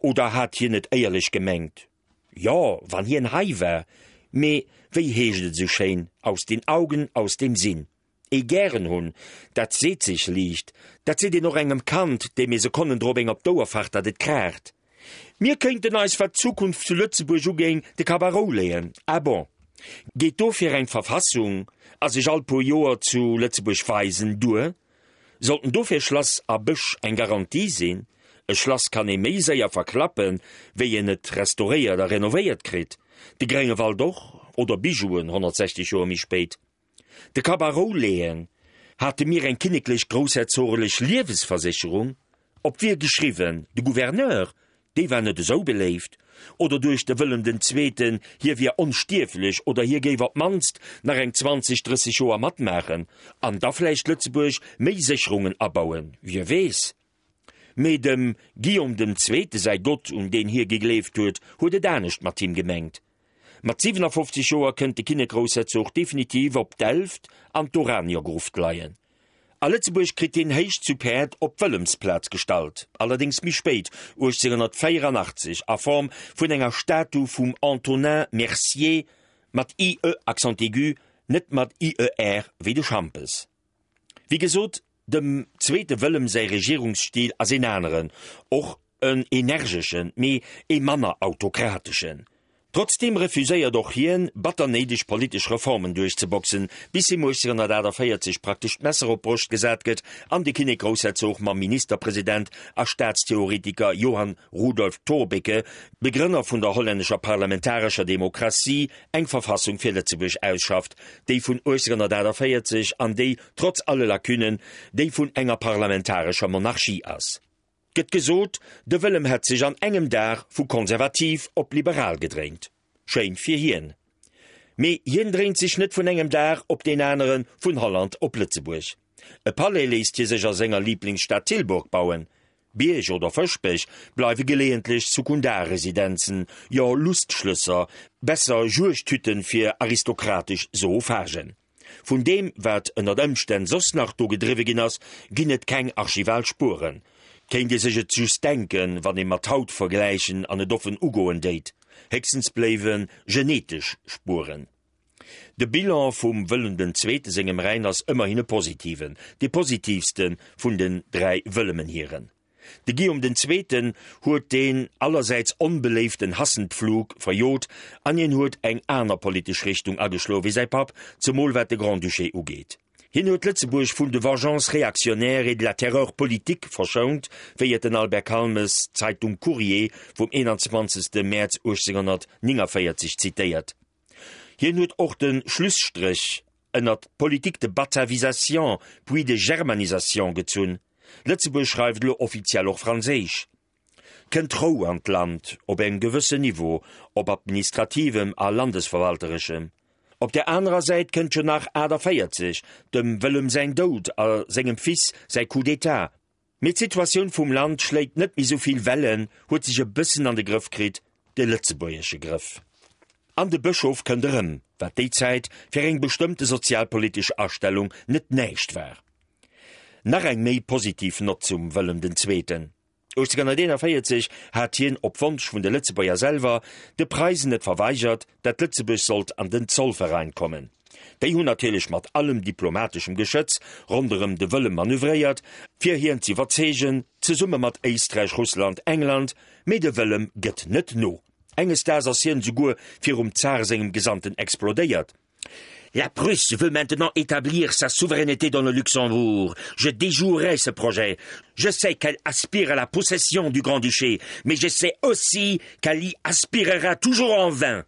Oder hat hien et éierlech gemengt? Jo, wann hien hei war. Mee wéi heescht et esou schéin, aus den Augen, aus dem Sinn. Ee gären hunn, dat seet sech liicht, dat seet een och engem Kand, deem ee Sekonnen drop eng op d'Ouer facht, datt et kraacht. Mir kéinten eis, wat d'Zukunft zu Lëtzebuerg ugéing, de Kapp a Rou leeën. Ah bon? Geet dofir eng Verfassung a sech all puer Joer zu Lëtzebuerg weisen duer? Sollten dofir Schlass a Bësch eng Garantie sinn? E Schlass kann ee méi séier verklappen, wéi een et restauréiert a renovéiert kritt. De Gréngewald och, oder Bijouen 160 Joer méi spéit. De Kapp a Rou leeën. Hate mir eng kinneklech groussherzoglech Liewesversécherung? Op wie geschriwwen? De Gouverneur? Déi war net esou beléift. Oder duecht de Wëllem den Zweeten, hie wier onstierflech oder hie géif op d'mannst nach eng 20, 30 Joer matmaachen an da vläicht Lëtzebuerg méi Sécherungen abauen, wie weess. Mee dem Guillaume dem Zweete säi Gott, un deen hie gegleeft huet, huet et anescht mat him gemengt. Mat 57 Joer kënnt de Kinnek-Groussherzog definitiv op Delft an d'Oraniergruft leien. A Lëtzebuerg kritt hien héich zu Päerd op d'Wëllemsplaz gestallt, allerdéngs méi spéit, 1884, a Form vun enger Statu vum Antonin Mercier, mat ie accent aigu, net mat ier wéi de Schampes. Wéi gesot, Dem zweete Wëllem säi Regierungsstil ass een aneren, och en energeschen, mee ee manner autokrateschen. Trotzdeem refuséiert och hien, batter néideg politesch Reformen duerchzeboxen, bis him 1848 praktesch d'Messer op d'Broscht gesat gëtt an de Kinnek-Groussherzog mam Ministerpresident a Staatstheoretiker Johan Rudolf Thorbecke, Begrënner vun der hollännescher parlamentarescher Demokratie, eng Verfassung fir Lëtzebuerg ausschafft, déi vun 1848 an déi, trotz alle Lacunnen, déi vun enger parlamentarescher Monarchie ass. Gëtt gesot, de Wëllem hätt sech an engem Dag vu konservativ op liberal gedréint. Schéin fir hien. Mee hien dréint sech net vun engem Dag op deen anere vun Holland op Lëtzebuerg. E Palais léisst hie sech a senger Liblingsstad Tilburg bauen. Bierg oder Fëschbech bleiwe geleeëntlech Sekundarresidenzen, jo Lustschlësser, besser Juegdhütten fir aristokratesch Zoophagen. Vun deem, wat ënnert Ëmstänn soss nach do gedriwwe ginn ass, ginn et keng archival Spueren. Kéint ee sech et just denken, wann ee mat haut vergläichen an et offen ugoen déit. Héchstens bléiwe genetesch Spueren. De Bilan vum Wëllem den Zweete sengem Rhäin ass ëmmerhin e positiven, dee positivste vun den 3 Wëllemenhiren. De Guillaume den Zweeten huet deen allersäits onbeléiften Hassenpflug verjot an hien huet eng aner politesch Richtung ageschloe wéi säi Papp, zemol wat de Grand-Duché ugeet. Hien huet Lëtzebuerg vun de vengeances réactionnaires et de la terreur politique verschount, wéi et den Albert Calmes d'Zeitung Courrier vum 21. Mäerz 1849 zitéiert. Hien huet och de Schlusstréch ënnert d'Politique de batavisation puis de germanisation gezunn. Lëtzebuerg schreift elo offiziell och Franséisch. Kënnt Rou an d'Land, op engem gewëssen Niveau, op administrativem a landesverwaltereschem. Op der anerer Säit kënnt jo nach 48, dem Wëllem säin Doud a sengem Fils säi Coup d'État. Mee d'Situatioun vum Land schléit net méi sou vill Wellen, huet sech e bëssen an de Grëff kritt, de lëtzebuergesche Grëff. An de Bëschof kënnt erëm, wat déi Zäit fir eng bestëmmte sozialpolitesch Astellung net näischt war. Nach eng méi positiv Nott zum Wëllem den Zweeten. 1841 hat hien op Wonsch vun de Lëtzebuerger selwer de Preisen et verweigert, dat Lëtzebuerg sollt an den Zollverein kommen. Déi hunn natierlech mat allem diplomateschem Geschëtz ronderëm de Wëllem manövréiert, fir hien z'iwwerzeegen, zesumme mat Éisträich, Russland, England, mee de Wëllem gëtt net no. Enges Daags ass hien esouguer virum Zar sengem Gesandten explodéiert. La Prusse veut maintenant établir sa souveraineté dans le Luxembourg. Je déjouerai ce projet. Je sais qu'elle aspire à la possession du Grand-Duché, mais je sais aussi qu'elle y aspirera toujours en vain.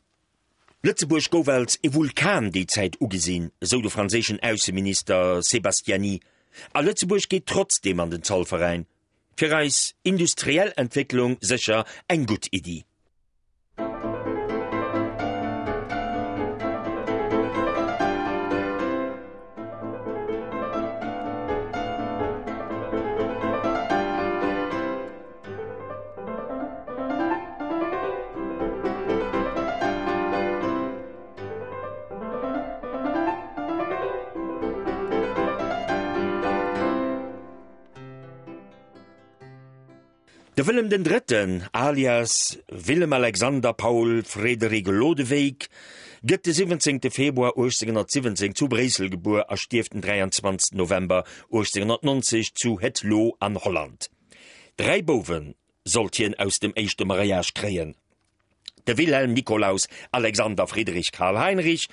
Lëtzebuerg gouf als e Vulkan déi Zäit ugesinn, esou de franséischen Ausseminister Sebastiani. A Lëtzebuerg geet trotzdeem an den Zollveräin. Fir eis industriell Entwécklung sécher eng gutt Iddi. De Wëllem den Drëtten, alias Willem Alexander Paul Frederik Lodewijk, gëtt de 17. Februar 1817 zu Bréissel gebuer a stierft den 23. November 1890 zu Het Loo an Holland. Dräi Bouwe sollt hien aus dem éischte Mariage kréien. de Wilhelm Nikolaus Alexander Friedrich Karl Heinrich,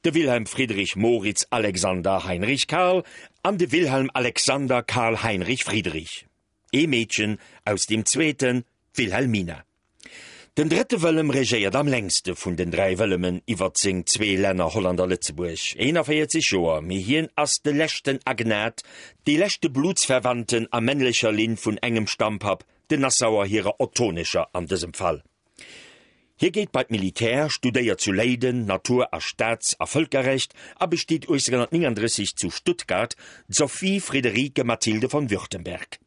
de Wilhelm Friedrich Moritz Alexander Heinrich Karl an de Wilhelm Alexander Karl Heinrich Friedrich, ee Meedchen aus deem zweeten, d'Wilhelmina. Den drëtte Wëllem regéiert am längste vun den dräi Wëllemen iwwer seng zwee Länner Holland a Lëtzebuerg, 41 Joer, mee hien ass de leschten Agnat, dee leschte Blutsverwandten a männlecher Linn vun engem Stammpapp, den Nassauer hirer ottonescher an dësem Fall. Hie geet bei d'Militär, studéiert zu Leyden Natur a Staats a Vëlkerrecht a bestiet 1839 zu Stuttgart d'Sophie Friederike Mathilde von Württemberg.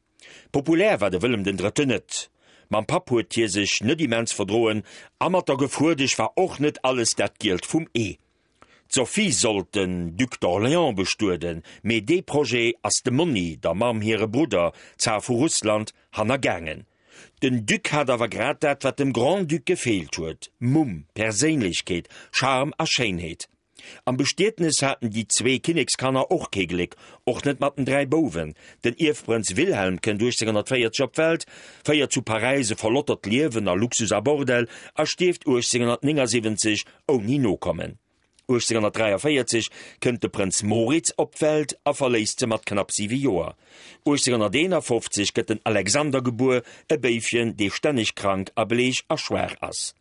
Populär war de Wëllem den Drëtten net. Mam Papp huet hie sech net immens verdroen a mat der Gefuerdesch war och net alles dat Gielt vum Ee. D'Sophie sollt den Duc d'Orléans bestueden, mee dee Projet ass dem Monni, der Mamm hire Brudder, Zar vu Russland, hannergaangen. Den Duc hat awer grad dat, wat dem Grand-Duc gefeelt huet, Mumm, Perséinlechkeet, Charme a Schéinheet. Am Bestietnes haten déi zwee Kinnekskanner och kee Gléck, och net mat den 3 Bouwen. Den Ierfprënz Wilhelm kënnt 1840 op d'Welt, féiert zu Paräis e verlottert Liewen a Luxus a Bordell a stierft 1879 ouni Nokommen. 1843 kënnt de Prënz Moritz op d'Welt a verléisst se mat knapp 7 Joer. 1851 gëtt den Alexander gebuer, e Béifchen, dee stänneg krank a bleech a schwaach ass.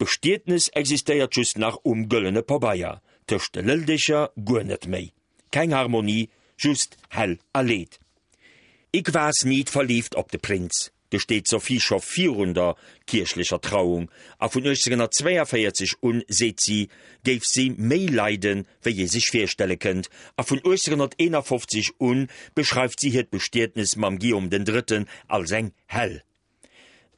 D'Bestietnes existéiert just nach um gëllene Pabeier, tëscht de Lëldecher guer net méi. Keng Harmonie, just Hell a Leed. Ik was niet verliefd op de Prins, gesteet d'Sophie scho virun der kierchlecher Trauung, a vun 1842 un, seet si, géif si méi leiden, wéi ee sech virstelle kënnt, a vun 1851 un beschreift si hiert Bestietnes mam Guillaume den Drëtten als eng Hell.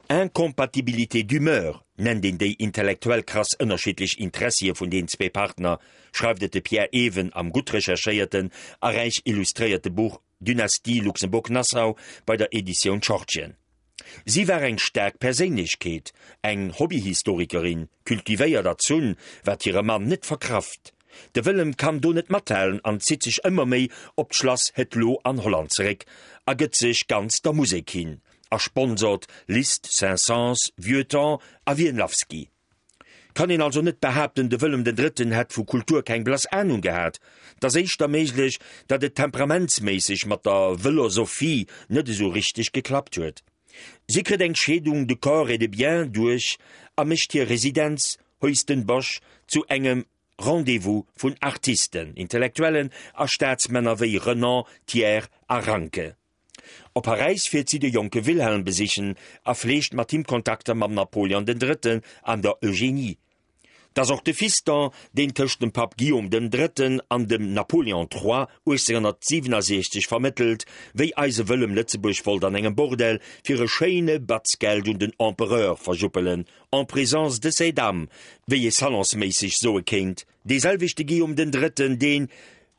Incompatibilité d'humeur nennt een déi intellektuell krass ënnerschiddlech Interessie vun den zwee Partner, schreift et de Pierre Even am gutt recherchéierten a räich illustréierte Buch Dynastie Luxembourg-Nassau bei der Editioun Schortgen. Si war eng staark Perséinlechkeet, eng Hobbyhistorikerin, cultivéiert erzunn, wat hire Mann net verkraft. De Wëllem kann do net mathalen an zitt sech ëmmer méi op d'Schlass Het Loo an Holland zeréck a gëtt sech ganz der Musek hin a sponsort Liszt, Saint-Saëns, Vieuxtemps a Wienlawski. Kann een also net behaapten, de Wëllem den Drëtten hätt vu Kultur keng blass Anung gehat. 't ass éischter méiglech, datt et temperamentsméisseg mat der Wëllosophie net esou richteg geklappt huet. Si kritt eng Scheedung de corps et de biens duerch a mécht hir Residenz Huis ten Bosch zu engem Rendez-vous vun Artisten, Intellektuellen a Staatsmänner wéi Renan, Thiers a Ranke. Op Paräis fiert si de jonke Wilhelm besichen a fleegt mat him Kontakter mam Napoleon den Drëtten an der Eugénie. 't ass och de Fiston, deen tëscht dem Papp Guillaume dem Drëtten an dem Napoléon Trois 1867 vermëttelt, wéi eise Wëllem Lëtzebuerg wollt an engem Bordell fir e schéine Batz Geld un den Empereur verjuppelen, en présence de ces dames, wéi ee salonsméisseg soe kéint. Dee selwechte Guillaume den Drëtten, deen,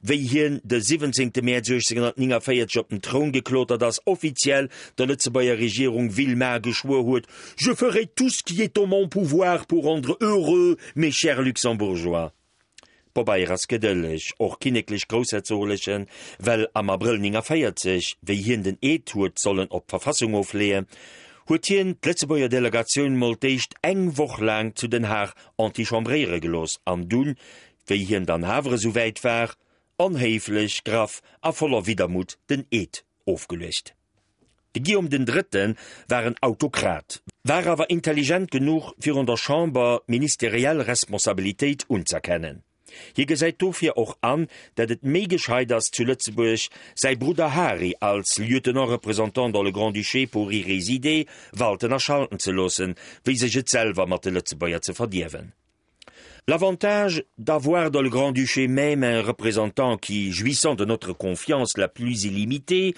wéi hien de 17. Mäerz 1849 op den Troun geklotert ass, offiziell der Lëtzebuerger Regierung Villemain geschwuer huet, Je ferai tout ce qui est en mon pouvoir pour rendre heureux mes chers Luxembourgeois. Pobeier ass gedëlleg, och kinneklech-groussherzoglechen, well am Abrëll 49, wéi hien den Eed huet sollen op d'Verfassung ofleeën, huet hien d'Lëtzebuerger Delegatioun mol d'éischt eng Woch laang zu Den Haag antichambréiere gelooss an dunn, wéi hien dann awer esou wäit war, onhéiflech, graff a voller Widdermutt den Eed ofgeluecht. De Guillaume den Drëtte war en Autokrat, war awer intelligent genuch, fir un der Chamber d'ministeriell Responsabilitéit unz'erkennen. Hie gesäit dofir och an, dat et méi gescheit ass, zu Lëtzebuerg säi Brudder Hari als Lieutenant représentant dans le Grand-Duché pour y résider walten a schalten ze loossen, wéi sech et selwer mat de Lëtzebuerger ze verdierwen. L'avantage d'avoir dans le Grand-Duché même un représentant qui, jouissant de notre confiance la plus illimitée,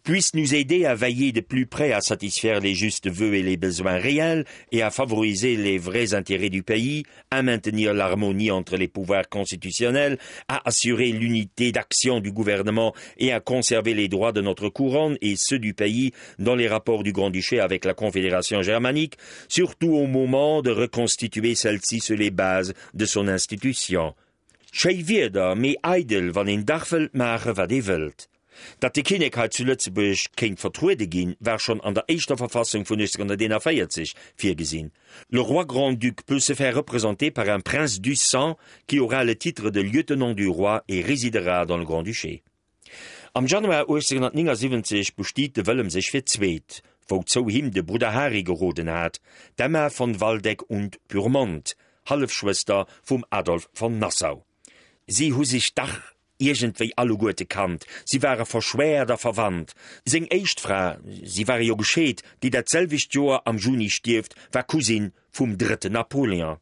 puisse nous aider à veiller de plus près à satisfaire les justes vœux et les besoins réels et à favoriser les vrais intérêts du pays, à maintenir l'harmonie entre les pouvoirs constitutionnels, à assurer l'unité d'action du gouvernement et à conserver les droits de notre couronne et ceux du pays dans les rapports du Grand-Duché avec la Confédération germanique, surtout au moment de reconstituer celle-ci sur les bases de son institution. Schéi Wierder, mee eidel, wann een dach wëllt maache wat ee wëllt. Datt de Kinnek hei zu Lëtzebuerg kéint vertruede ginn, war schonn an der éischter Verfassung vun 1841 virgesinn, Le roi grand-duc peut se faire représenter par un prince du sang qui aura le titre de lieutenant du roi et résidera dans le Grand-Duché. Am Januar 1879 bestiet de Wëllem sech fir d'zweet, wouzou him de Brudder Hari geroden hat, d'Emma von Waldeck und Pyrmont, Hallefschwëster vum Adolf von Nassau. Si hu sech dach iergendwéi alleguerte kannt, si ware verschwäert a verwandt. Seng éischt Fra, si ware jo gescheet, déi dat selwecht Joer am Juni stierft, war Cousine vum drëtten Napoléon.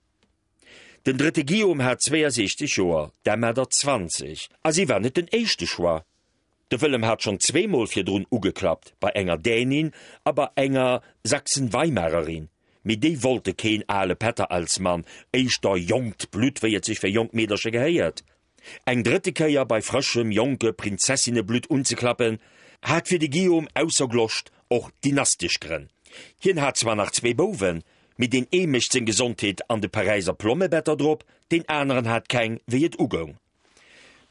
Den drëtte Guillaume hat 62 Joer, d'Emma der 20, a si war net den éischte Choix. De Wëllem hat schonn zweemol virdrun ugeklappt, bei enger Dänin a bei enger Sachsen-Weimarerin, mee déi wollte keen ale Pätter als Mann, éischter jonkt Blutt, wéi et sech fir jonk Meedercher gehéiert. Eng drëtte Kéier bei frëschem, jonke Prinzessinneblutt unzeklappen, hat fir de Guillaume ausser Gloscht och dynastesch Grënn. Hien hat zwar nach zwee Bouwen, Mee deen ee mécht seng Gesondheet an de Paräiser Plommebetter drop, deen aneren hat keng, wéi et ugoung.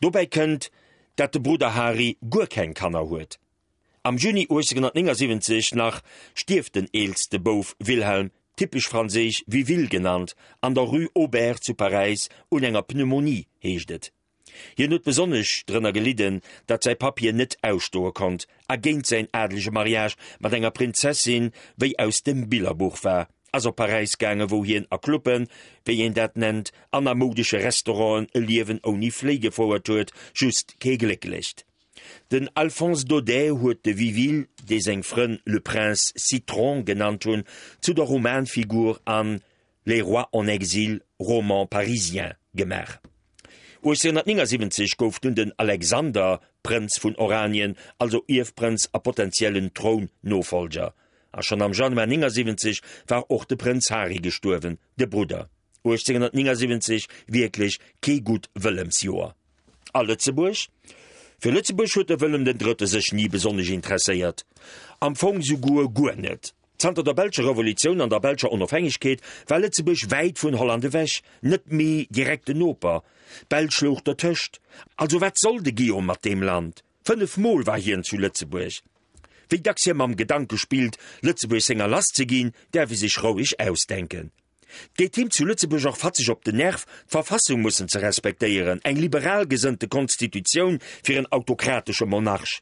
Dobäi kënnt, dat de Brudder Hari guer keng Kanner huet. Am Juni 1879 nach stierft den eelste Bouf Wilhelm, typesch franséisch Viville genannt, an der Rue Auber zu Paräis un enger Pneumonie, heescht et. Hien huet besonnesch drënner gelidden, datt säi Papp hien net ausstoe konnt a géint säin adelege Mariage mat enger Prinzessin wéi aus dem Billerbuch war, ass op Paräis gaange wou hien a Clubben, wéi een dat nennt, an a moudesche Restauranten e Liewen ouni Fléi gefouert huet, just kee glécklecht. Den Alphonse Daudet huet de Viville, dee seng Frënn le Prince Citron genannt hunn, zu der Romanfigur an Les rois en exil, roman parisien gemaach. 1879 gouf dunn den Alexander Prënz vun Oranien, also Ierfprënz a potentiellen Trounnofollger. A schonn am Januar 79 war och de Prënz Hari gestuerwen, de Brudder. 1879, wierklech kee gutt Wëllemsjoer. A Lëtzebuerg? Fir Lëtzebuerg huet de Wëllem den Drëtte sech ni besonnesch interesséiert. Am Fong souguer guer net. Zanter der belscher Revolutioun an der belscher Onofhängegkeet war Lëtzebuerg wäit vun Holland ewech, net méi direkten Noper. D'Belsch louch dertëscht. Also wat soll de Guillaume mat deem Land? 5 Mol war hien zu Lëtzebuerg. Wéi dacks hie mam Gedanke spillt, Lëtzebuerg senger lass ze ginn, däerf e sech roueg ausdenken. 't geet him zu Lëtzebuerg och fatzeg op den Nerv, d'Verfassung mussen ze respektéieren, eng liberal gesënnte Konstitutioun fir en autokratesche Monarch.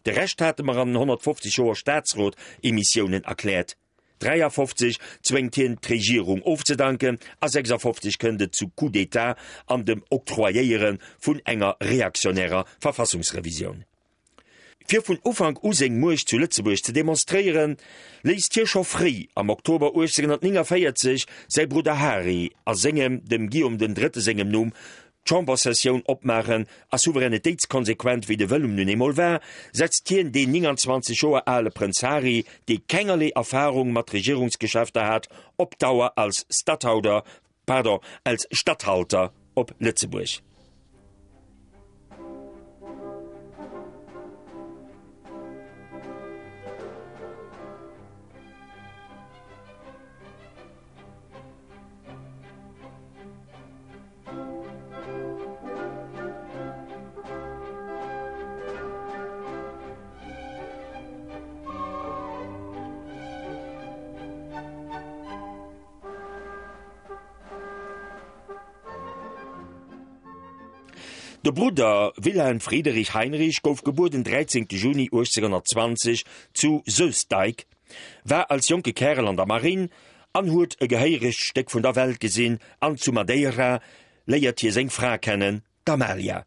De Rescht hate mer an den 150 Joer Staatsrot-Emissiounen erkläert. 53 zwéngt hien d'Regierung ofzedanken a 56 kënnt et zu Coup d'État an dem Octroyéiere vun enger reaktionärer Verfassungsrevisioun. Fir vun Ufank u seng Muecht zu Lëtzebuerg ze demonstréieren, léisst hie scho fréi am Oktober 1849 säi Brudder Hari a sengem, dem Guillaume den Drëtte sengem Numm, d'Chambersessioun opmaachen a souveränitéitskonsequent wéi de Wëllem nun eemol war, setzt hien deen 29 Joer ale Prënz Hari, dee kengerlee Erfarung mat Regierungsgeschäfter hat, op Dauer als Stathouder, pardon, als Statthalter op Lëtzebuerg. De Brudder Wilhelm Friederich Heinrich gouf gebuer den 13 Juni 1820 zu Soestdijk, war als jonke Kärel an der Marinn an huet e gehéieregt Stéck vun der Welt gesinn an zu Madeira léiert hie seng Fra kennen, d'Amalia.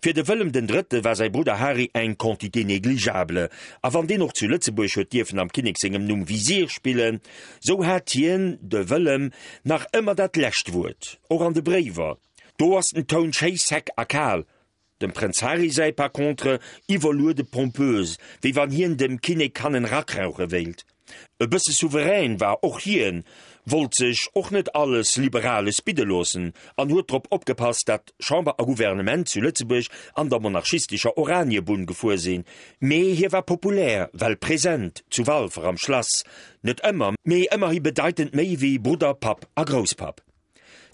Fir de Wëllem den Drëtte war säi Brudder Hari eng quantité négligeable, a wann deen och zu Lëtzebuerg huet dierfen am Kinnek sengem Numm Visier spillen, sou hat hien, de Wëllem, nach ëmmer dat lescht Wuert, och an de Bréiwer. Do ass den Toun schéi sec a kal, Dem Prënz Hari säi par contre iwwerluede pompös, wéi wann hien dem Kinnek hannen rakrauche wéilt. E bësse souverän war och hien, wollt sech och net alles Liberales bidde loossen an huet drop opgepasst, dat Chamber a Gouvernement zu Lëtzebuerg an der monarchistescher Oraniebunn gefuer sinn. Mee hie war populär, well present zu Walfer am Schlass, net ëmmer, mee ëmmerhi bedeitend méi wéi Brudder, Papp a Grousspapp.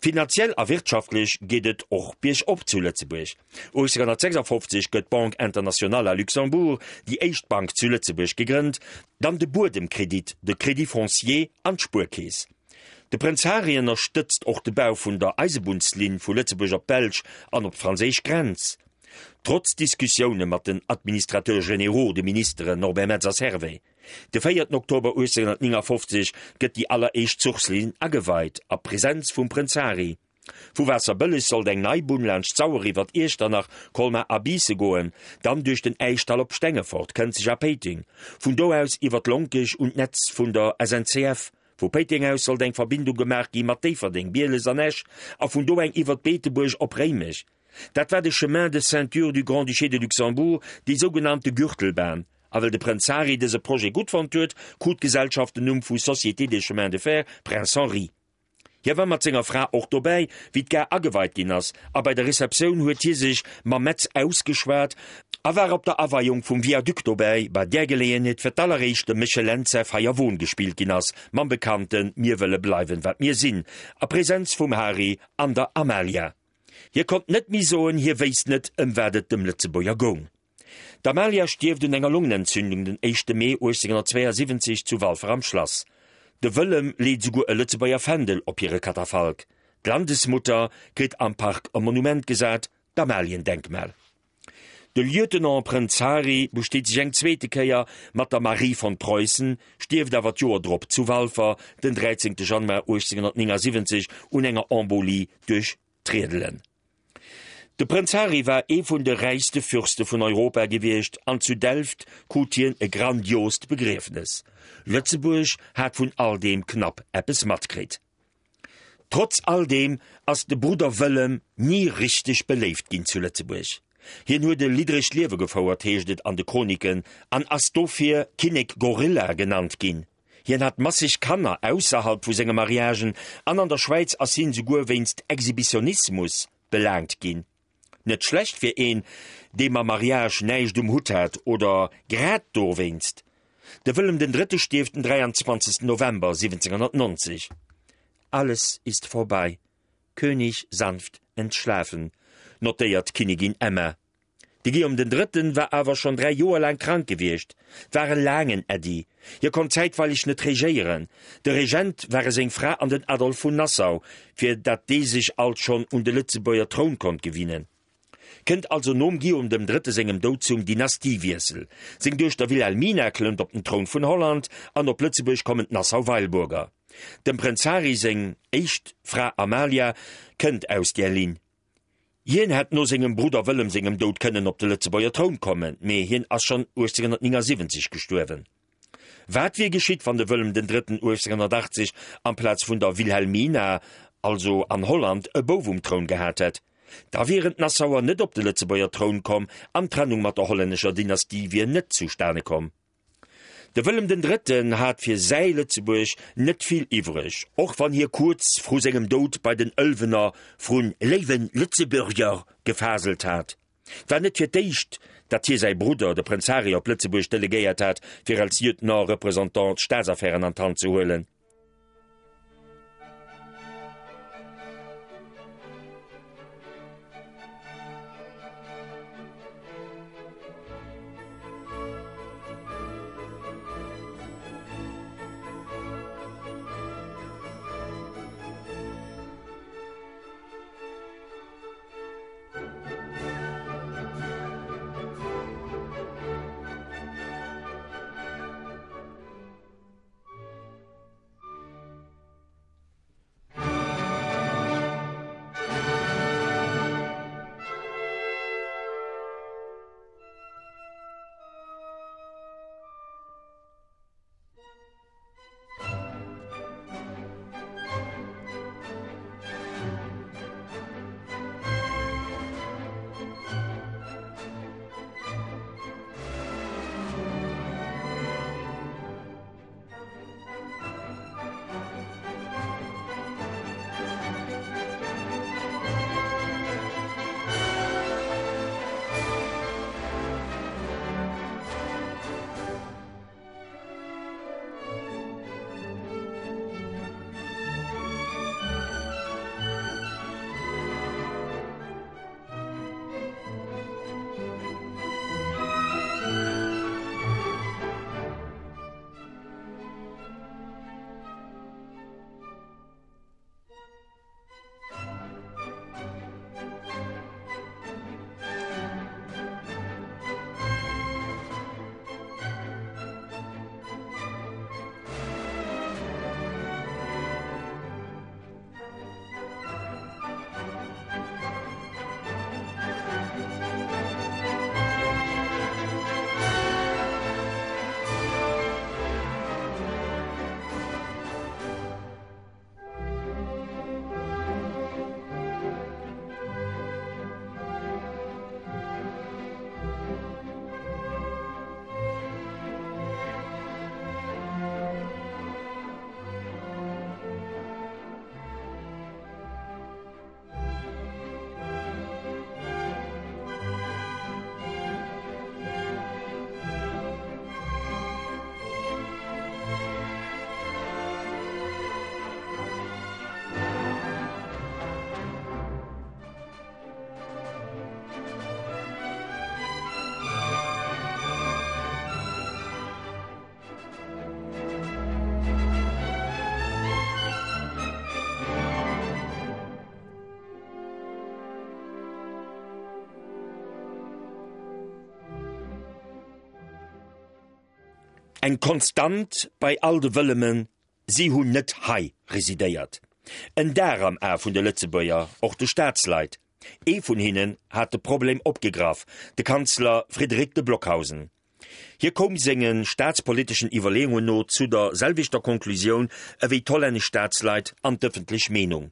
Finanziell a wirtschaftlech geet et och biergop zu Lëtzebuerg. 1856 gëtt d'Banque Internationale à Luxembourg, déi éischt Bank zu Lëtzebuerg, gegrënnt, dann de Buedemkredit, de Crédit foncier an d'Spuerkeess. De Prënz Hari ënnerstëtzt och de Bau vun der Eisebunnslinn vu Lëtzebuerg op d'Belsch an op d'franséisch Grenz. Trotz Diskussioune mat den Administrateurs généraux, de Ministeren Norbert Metz a Servais. De véierten Oktober 1859 gëtt déi alleréischt Zuchslinn ageweit, a Presenz vum Prënz Hari. Vu Waasserbëlleg sollt eng nei Bunn laanscht d'Sauer iwwert Iechternach, Colmar a Biisse goen, dann duerch den Äischdall op Stengefort, Kënzeg a Péiteng, vun do aus iwwert Lonkech un d'Netz vun der SNCF. Vu Péiteng aus sollt eng Verbindung gemaach gi mat Déifferdeng, Bieles an Esch a vun do eng iwwert Beetebuerg op Réimech. Dat war de Chemin de ceinture du Grand-Duché de Luxembourg, déi sougenannte Gürtelbahn. A well de Prënz Hari dëse Projet gutt fonnt huet, krut d'Gesellschaft den Numm vu Société des Chemins de Fer Prince Henri. Hie war mat senger Fra och dobäi, wéi d'Gare ageweit ginn ass, a bei der Receptioun huet hie sech mam Metz ausgeschwat a war op der Aweiung vum Viaduc dobäi, bei där Geleeënheet fir d'alleréischt dem Méchel Lentz säi Feierwon gespillt ginn ass, mam bekannte Mir wëlle bleiwen, wat mir sinn, a Presenz vum Hari an der Amalia. Hie konnt net méi soen, hie wéisst net, ëm wat et dem Lëtzebuerger goung. D'Amalia stierft un enger Longenentzündung den éischte Mee 1872 zu Walfer am Schlass. De Wëllem leet esouguer e Lëtzebuerger Fändel op hire Katafalk. D'Landesmutter kritt am Park e Monument gesat, d'Amaliendenkmal. De Lieutenant Prënz Hari besteet sech eng zweete Kéier mat der Marie von Preußen, stierft awer d'Joer drop zu Walfer den 13 Januar 1879 un enger Embolie duerch D'Riedelen. De Prënz Hari war ee vun de räichste Fürste vun Europa gewiescht an zu Delft krut hien e grandiost Begriefnes. Lëtzebuerg hat vun all deem knapp eppes matkritt. Trotz all deem ass de Brudder Wëllem ni richteg beléift ginn zu Lëtzebuerg. Hien huet e liddregt Liewe gefouert, heescht et an de Chroniken, an ass dofir Kinnek Gorilla genannt ginn. Hien hat masseg Kanner ausserhalb vu senge Mariagen an an der Schwäiz ass hien souguer wéinst Exhibitionismus belaangt ginn. Net schlecht fir een, dee mam Mariage näischt um Hutt hat, oder grad dowéinst. De Wëllem den Drëtte stierft den 23. November 1790. Alles ist vorbei, König sanft entschlafen, notéiert d'Kinnigin Emma. De Guillaume den Drëtten war awer schonn 3 Joer laang krank gewiescht. 't war e laangen Äddi. Hie konnt zäitweileg net regéieren. De Regent ware seng Fra an den Adolphe vun Nassau, fir datt dee sech alt schonn un de Lëtzebuerger Troun konnt gewinnen. Kënnt also nom Guillaume dem Drëtte sengem Doud zum Dynastiewiessel. Seng Duechter Wilhelmina klëmmt op den Troun vun Holland an op Lëtzebuerg kommen d'Nassau-Weilburger. Dem Prënz Hari seng éischt Fra Amalia kënnt aus där Linn. Hien hätt no sengem Brudder Wëllem sengem Doud kënnen op de Lëtzebuerger Troun kommen, mee hien ass schonn 1879 gestuerwen. Wat wier geschitt, wann de Wëllem den Drëtten 1880 amplaz vun der Wilhelmina, also an Holland, e Bouf um Troun gehat hätt? Da wieren d'Nassauer net op de Lëtzebuerger Troun komm an d'Trennung mat der hollännescher Dynastie wier net zustane komm. De Wëllem den Drëtten hat fir säi Lëtzebuerg net vill iwwreg, och wann hie kuerz vru sengem Doud bei den Ëlwener vrun léiwe Lëtzebuerger gefaselt hat. 't war net fir d'éischt, datt hie säi Brudder, de Prënz Hari, op Lëtzebuerg delegéiert hat, fir als Lieutenant-Représentant d'Staatsaffären an d'Hand ze huelen. Eng Konstant bei all de Wëllemen, si hunn net hei residéiert. En Dar am A vun de Lëtzebuerger, och de Staatsleit. Ee vun hinnen hat de Problem opgegraff, de Kanzler Frédéric de Blockhausen. Hie koum senge staatspoliteschen Iwwerleeungen no zu der selwechter Konklusioun ewéi d'hollännesch Staatsleit an d'ëffentlech Meenung,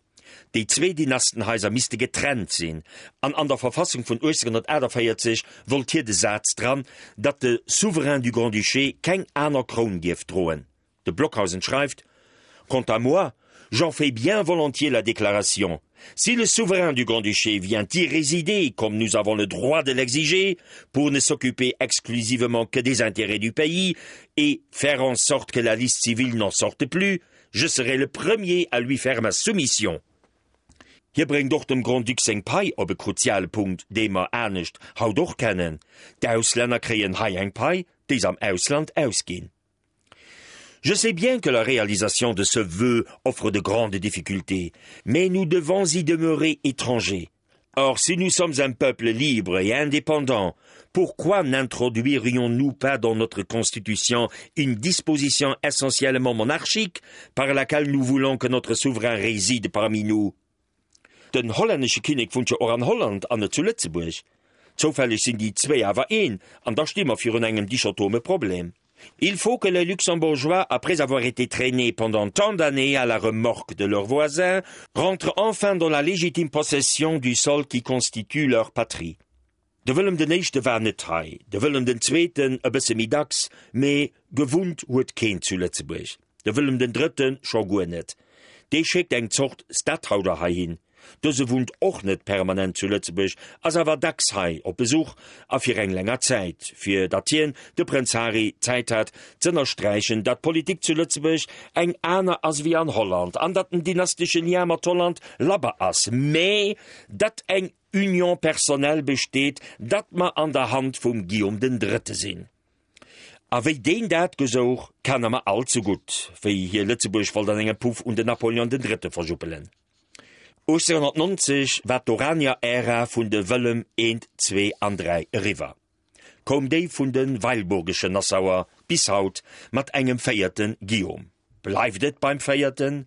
Déi zwee Dynastenhaiser misste getrennt sinn, an an der Verfassung vun 1848 wollt hie de Saz dran, datt de Souverain du Grand-Duché keng aner Kroun dierf droen. De Blockhausen schreift: Quant à moi, j'en fais bien volontiers la déclaration. Si le souverain du Grand-Duché vient y résider comme nous avons le droit de l'exiger, pour ne s'occuper exclusivement que des intérêts du pays et faire en sorte que la liste civile n'en sorte plus, je serai le premier à lui faire ma soumission. Hie bréngt och dem Grand-Duc seng Pai op e kruziale Punkt, dee mer anescht haut och kennen, D'Auslänner kréien hei eng Pai, déi s'am Ausland ausginn. Je sais bien que la réalisation de ce vœu offre de grandes difficultés, mais nous devons y demeurer étrangers. Or, si nous sommes un peuple libre et indépendant, pourquoi n'introduirions-nous pas dans notre constitution une disposition essentiellement monarchique par laquelle nous voulons que notre souverain réside parmi nous? Den hollännesche Kinnek wunnt jo och an Holland an net zu Lëtzebuerg. Zoufälleg sinn déi zwéi awer een, an da sti mer virun engem dichotome Problem. Il faut que les Luxembourgeois, après avoir été traînés pendant tant d'années à la remorque de leurs voisins, rentrent enfin dans la légitime possession du sol qui constitue leur patrie. De Wëllem den Éischte war net hei, de Wëllem den Zweeten e bësse méi dacks, mee gewunnt huet keen zu Lëtzebuerg. De Wëllem den Drëtte scho guer net. Dee schéckt eng Zort Stathouder heihin. Dëse wunnt och net permanent zu Lëtzebuerg, ass awer dacks hei op Besuch a fir eng länger Zäit, fir datt hien, de Prënz Hari, Zäit hat z'ënnersträichen, datt d'Politik zu Lëtzebuerg eng aner ass ewéi an Holland an datt den dynastesche Lien mat Holland labber ass, mee datt eng Union personnelle besteet, datt mer an der Hand vum Guillaume den Drëtte sinn. A wéi deen dat gesouch, kenne mer all ze gutt, wéi hie Lëtzebuerg wollt an engem Puff un den Napoleon den Drëtte verjuppelen. 1890 war d'Oranier-Ära vun de Wëllem I, II an III eriwwer, koum déi vun de Weilburgeschen Nassauer bis haut mat engem véierte Guillaume. Bleift et beim véierten?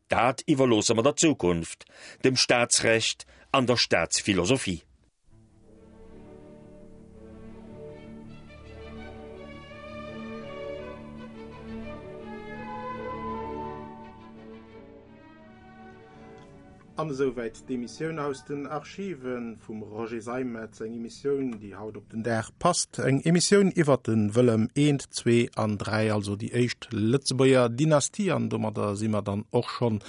Dat iwwerloosse mer der Zukunft, dem Staatsrecht an der Staatsphilosophie. An esouwäit d'Emissioun aus den Archive vum Roger Seimetz, eng Emissioun, déi haut op den Dag passt, eng Emissioun iwwert de Wëllem I, II an III, also déi éischt Lëtzebuerger Dynastie. An domadder si mer dann och schonn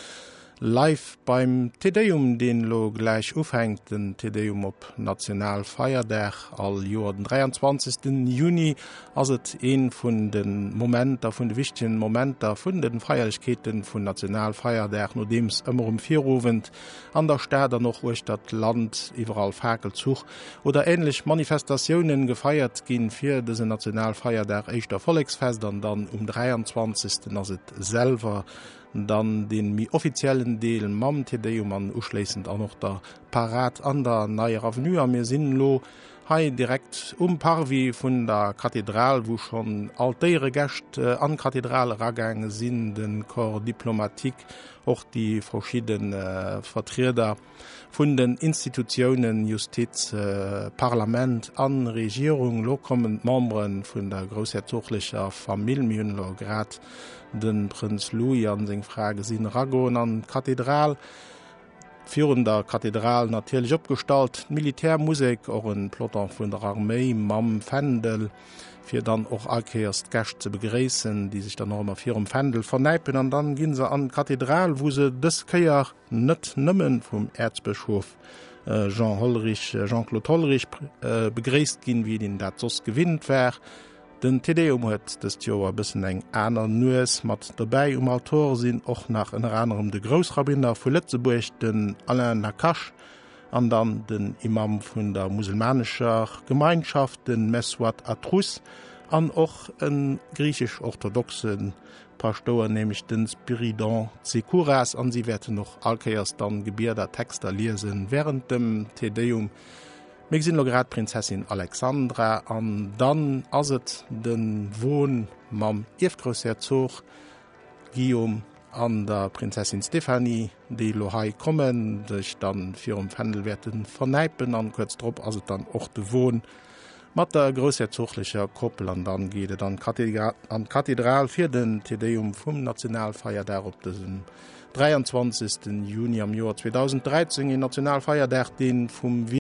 live beim Te Deum, deen elo gläich ufänkt, den Te Deum op Nationalfeierdag. All Joer den 23. Juni ass et ee vun de Momenter, vun de wichtegen Momenter vun de Feierlechkeete vun Nationalfeierdag, nodeems ëmmer um Virowend an der Stad an och uechter d'Land iwwerall Fakelzuch oder änlech Manifestatiounen gefeiert ginn fir dësen Nationalfeierdag, éischter Volleksfest an dann um 23. ass et selwer dann dee méi offiziellen Deel mam Te Deum an uschléissend an och der Parad an der Neier Avenue. A mir sinn elo hei direkt um Parvis vun der Kathedral, wou schonn all d'Éieregäscht an d'Kathedral eragaange sinn, de Corps diplomatique, och déi verschidde Vertrieder vun den Institutiounen, Justiz, Parlament a Regierung. Elo kommen d'Membere vun der groussherzoglecher Famill. Mir hunn elo grad de Prënz Louis a seng Fra gesinn eragoen an d'Kathedral. Virun der Kathedral natierlech opgestallt d'Militärmusek, och e Peloton vun der Arméi mam Fändel, fir dann och all Kéiers d'Gäscht ze begréissen, déi sech dann och ëmmer virum Fändel vernäipen. An dann gi se an d'Kathedral, wou se dës Kéier net nëmme vum Äerzbëschof Jean Hollerich, Jean-Claude Hollerich begréisst ginn, wéi een dat soss gewinnt war. Den Te Deum huet dëst Joer e bëssen eng aner Nues. Mat dobäi um Altor sinn och nach ënner anerem de Groussrabbiner vu Lëtzebuerg, den Alain Nacache, an dann den Imam vun der muselmanescher Gemeinschaft, de Messouad Atrous, an och e griichesch-orthodoxe Paschtouer, nämlech de Spyridon Tsekouras. An si wäerten och allkéiers dann Gebieder, Texter liesen wärend dem Te Deum. Mir gesinn elo grad d'Prinzessin Alexandra an dann ass et de Won mam Ierfgroussherzog Guillaume an der Prinzessin Stéphanie, déi elo hei kommen, sech dann virum Fändel wäerte vernäipen an kuerz drop ass et dann och de Won mat der groussherzoglecher Koppel an dann geet et an d'Kathedral fir den Te Deum vum Nationalfeierdag op dësem 23. Juni am Joer 2013, een Nationalfeierdag, dee vum.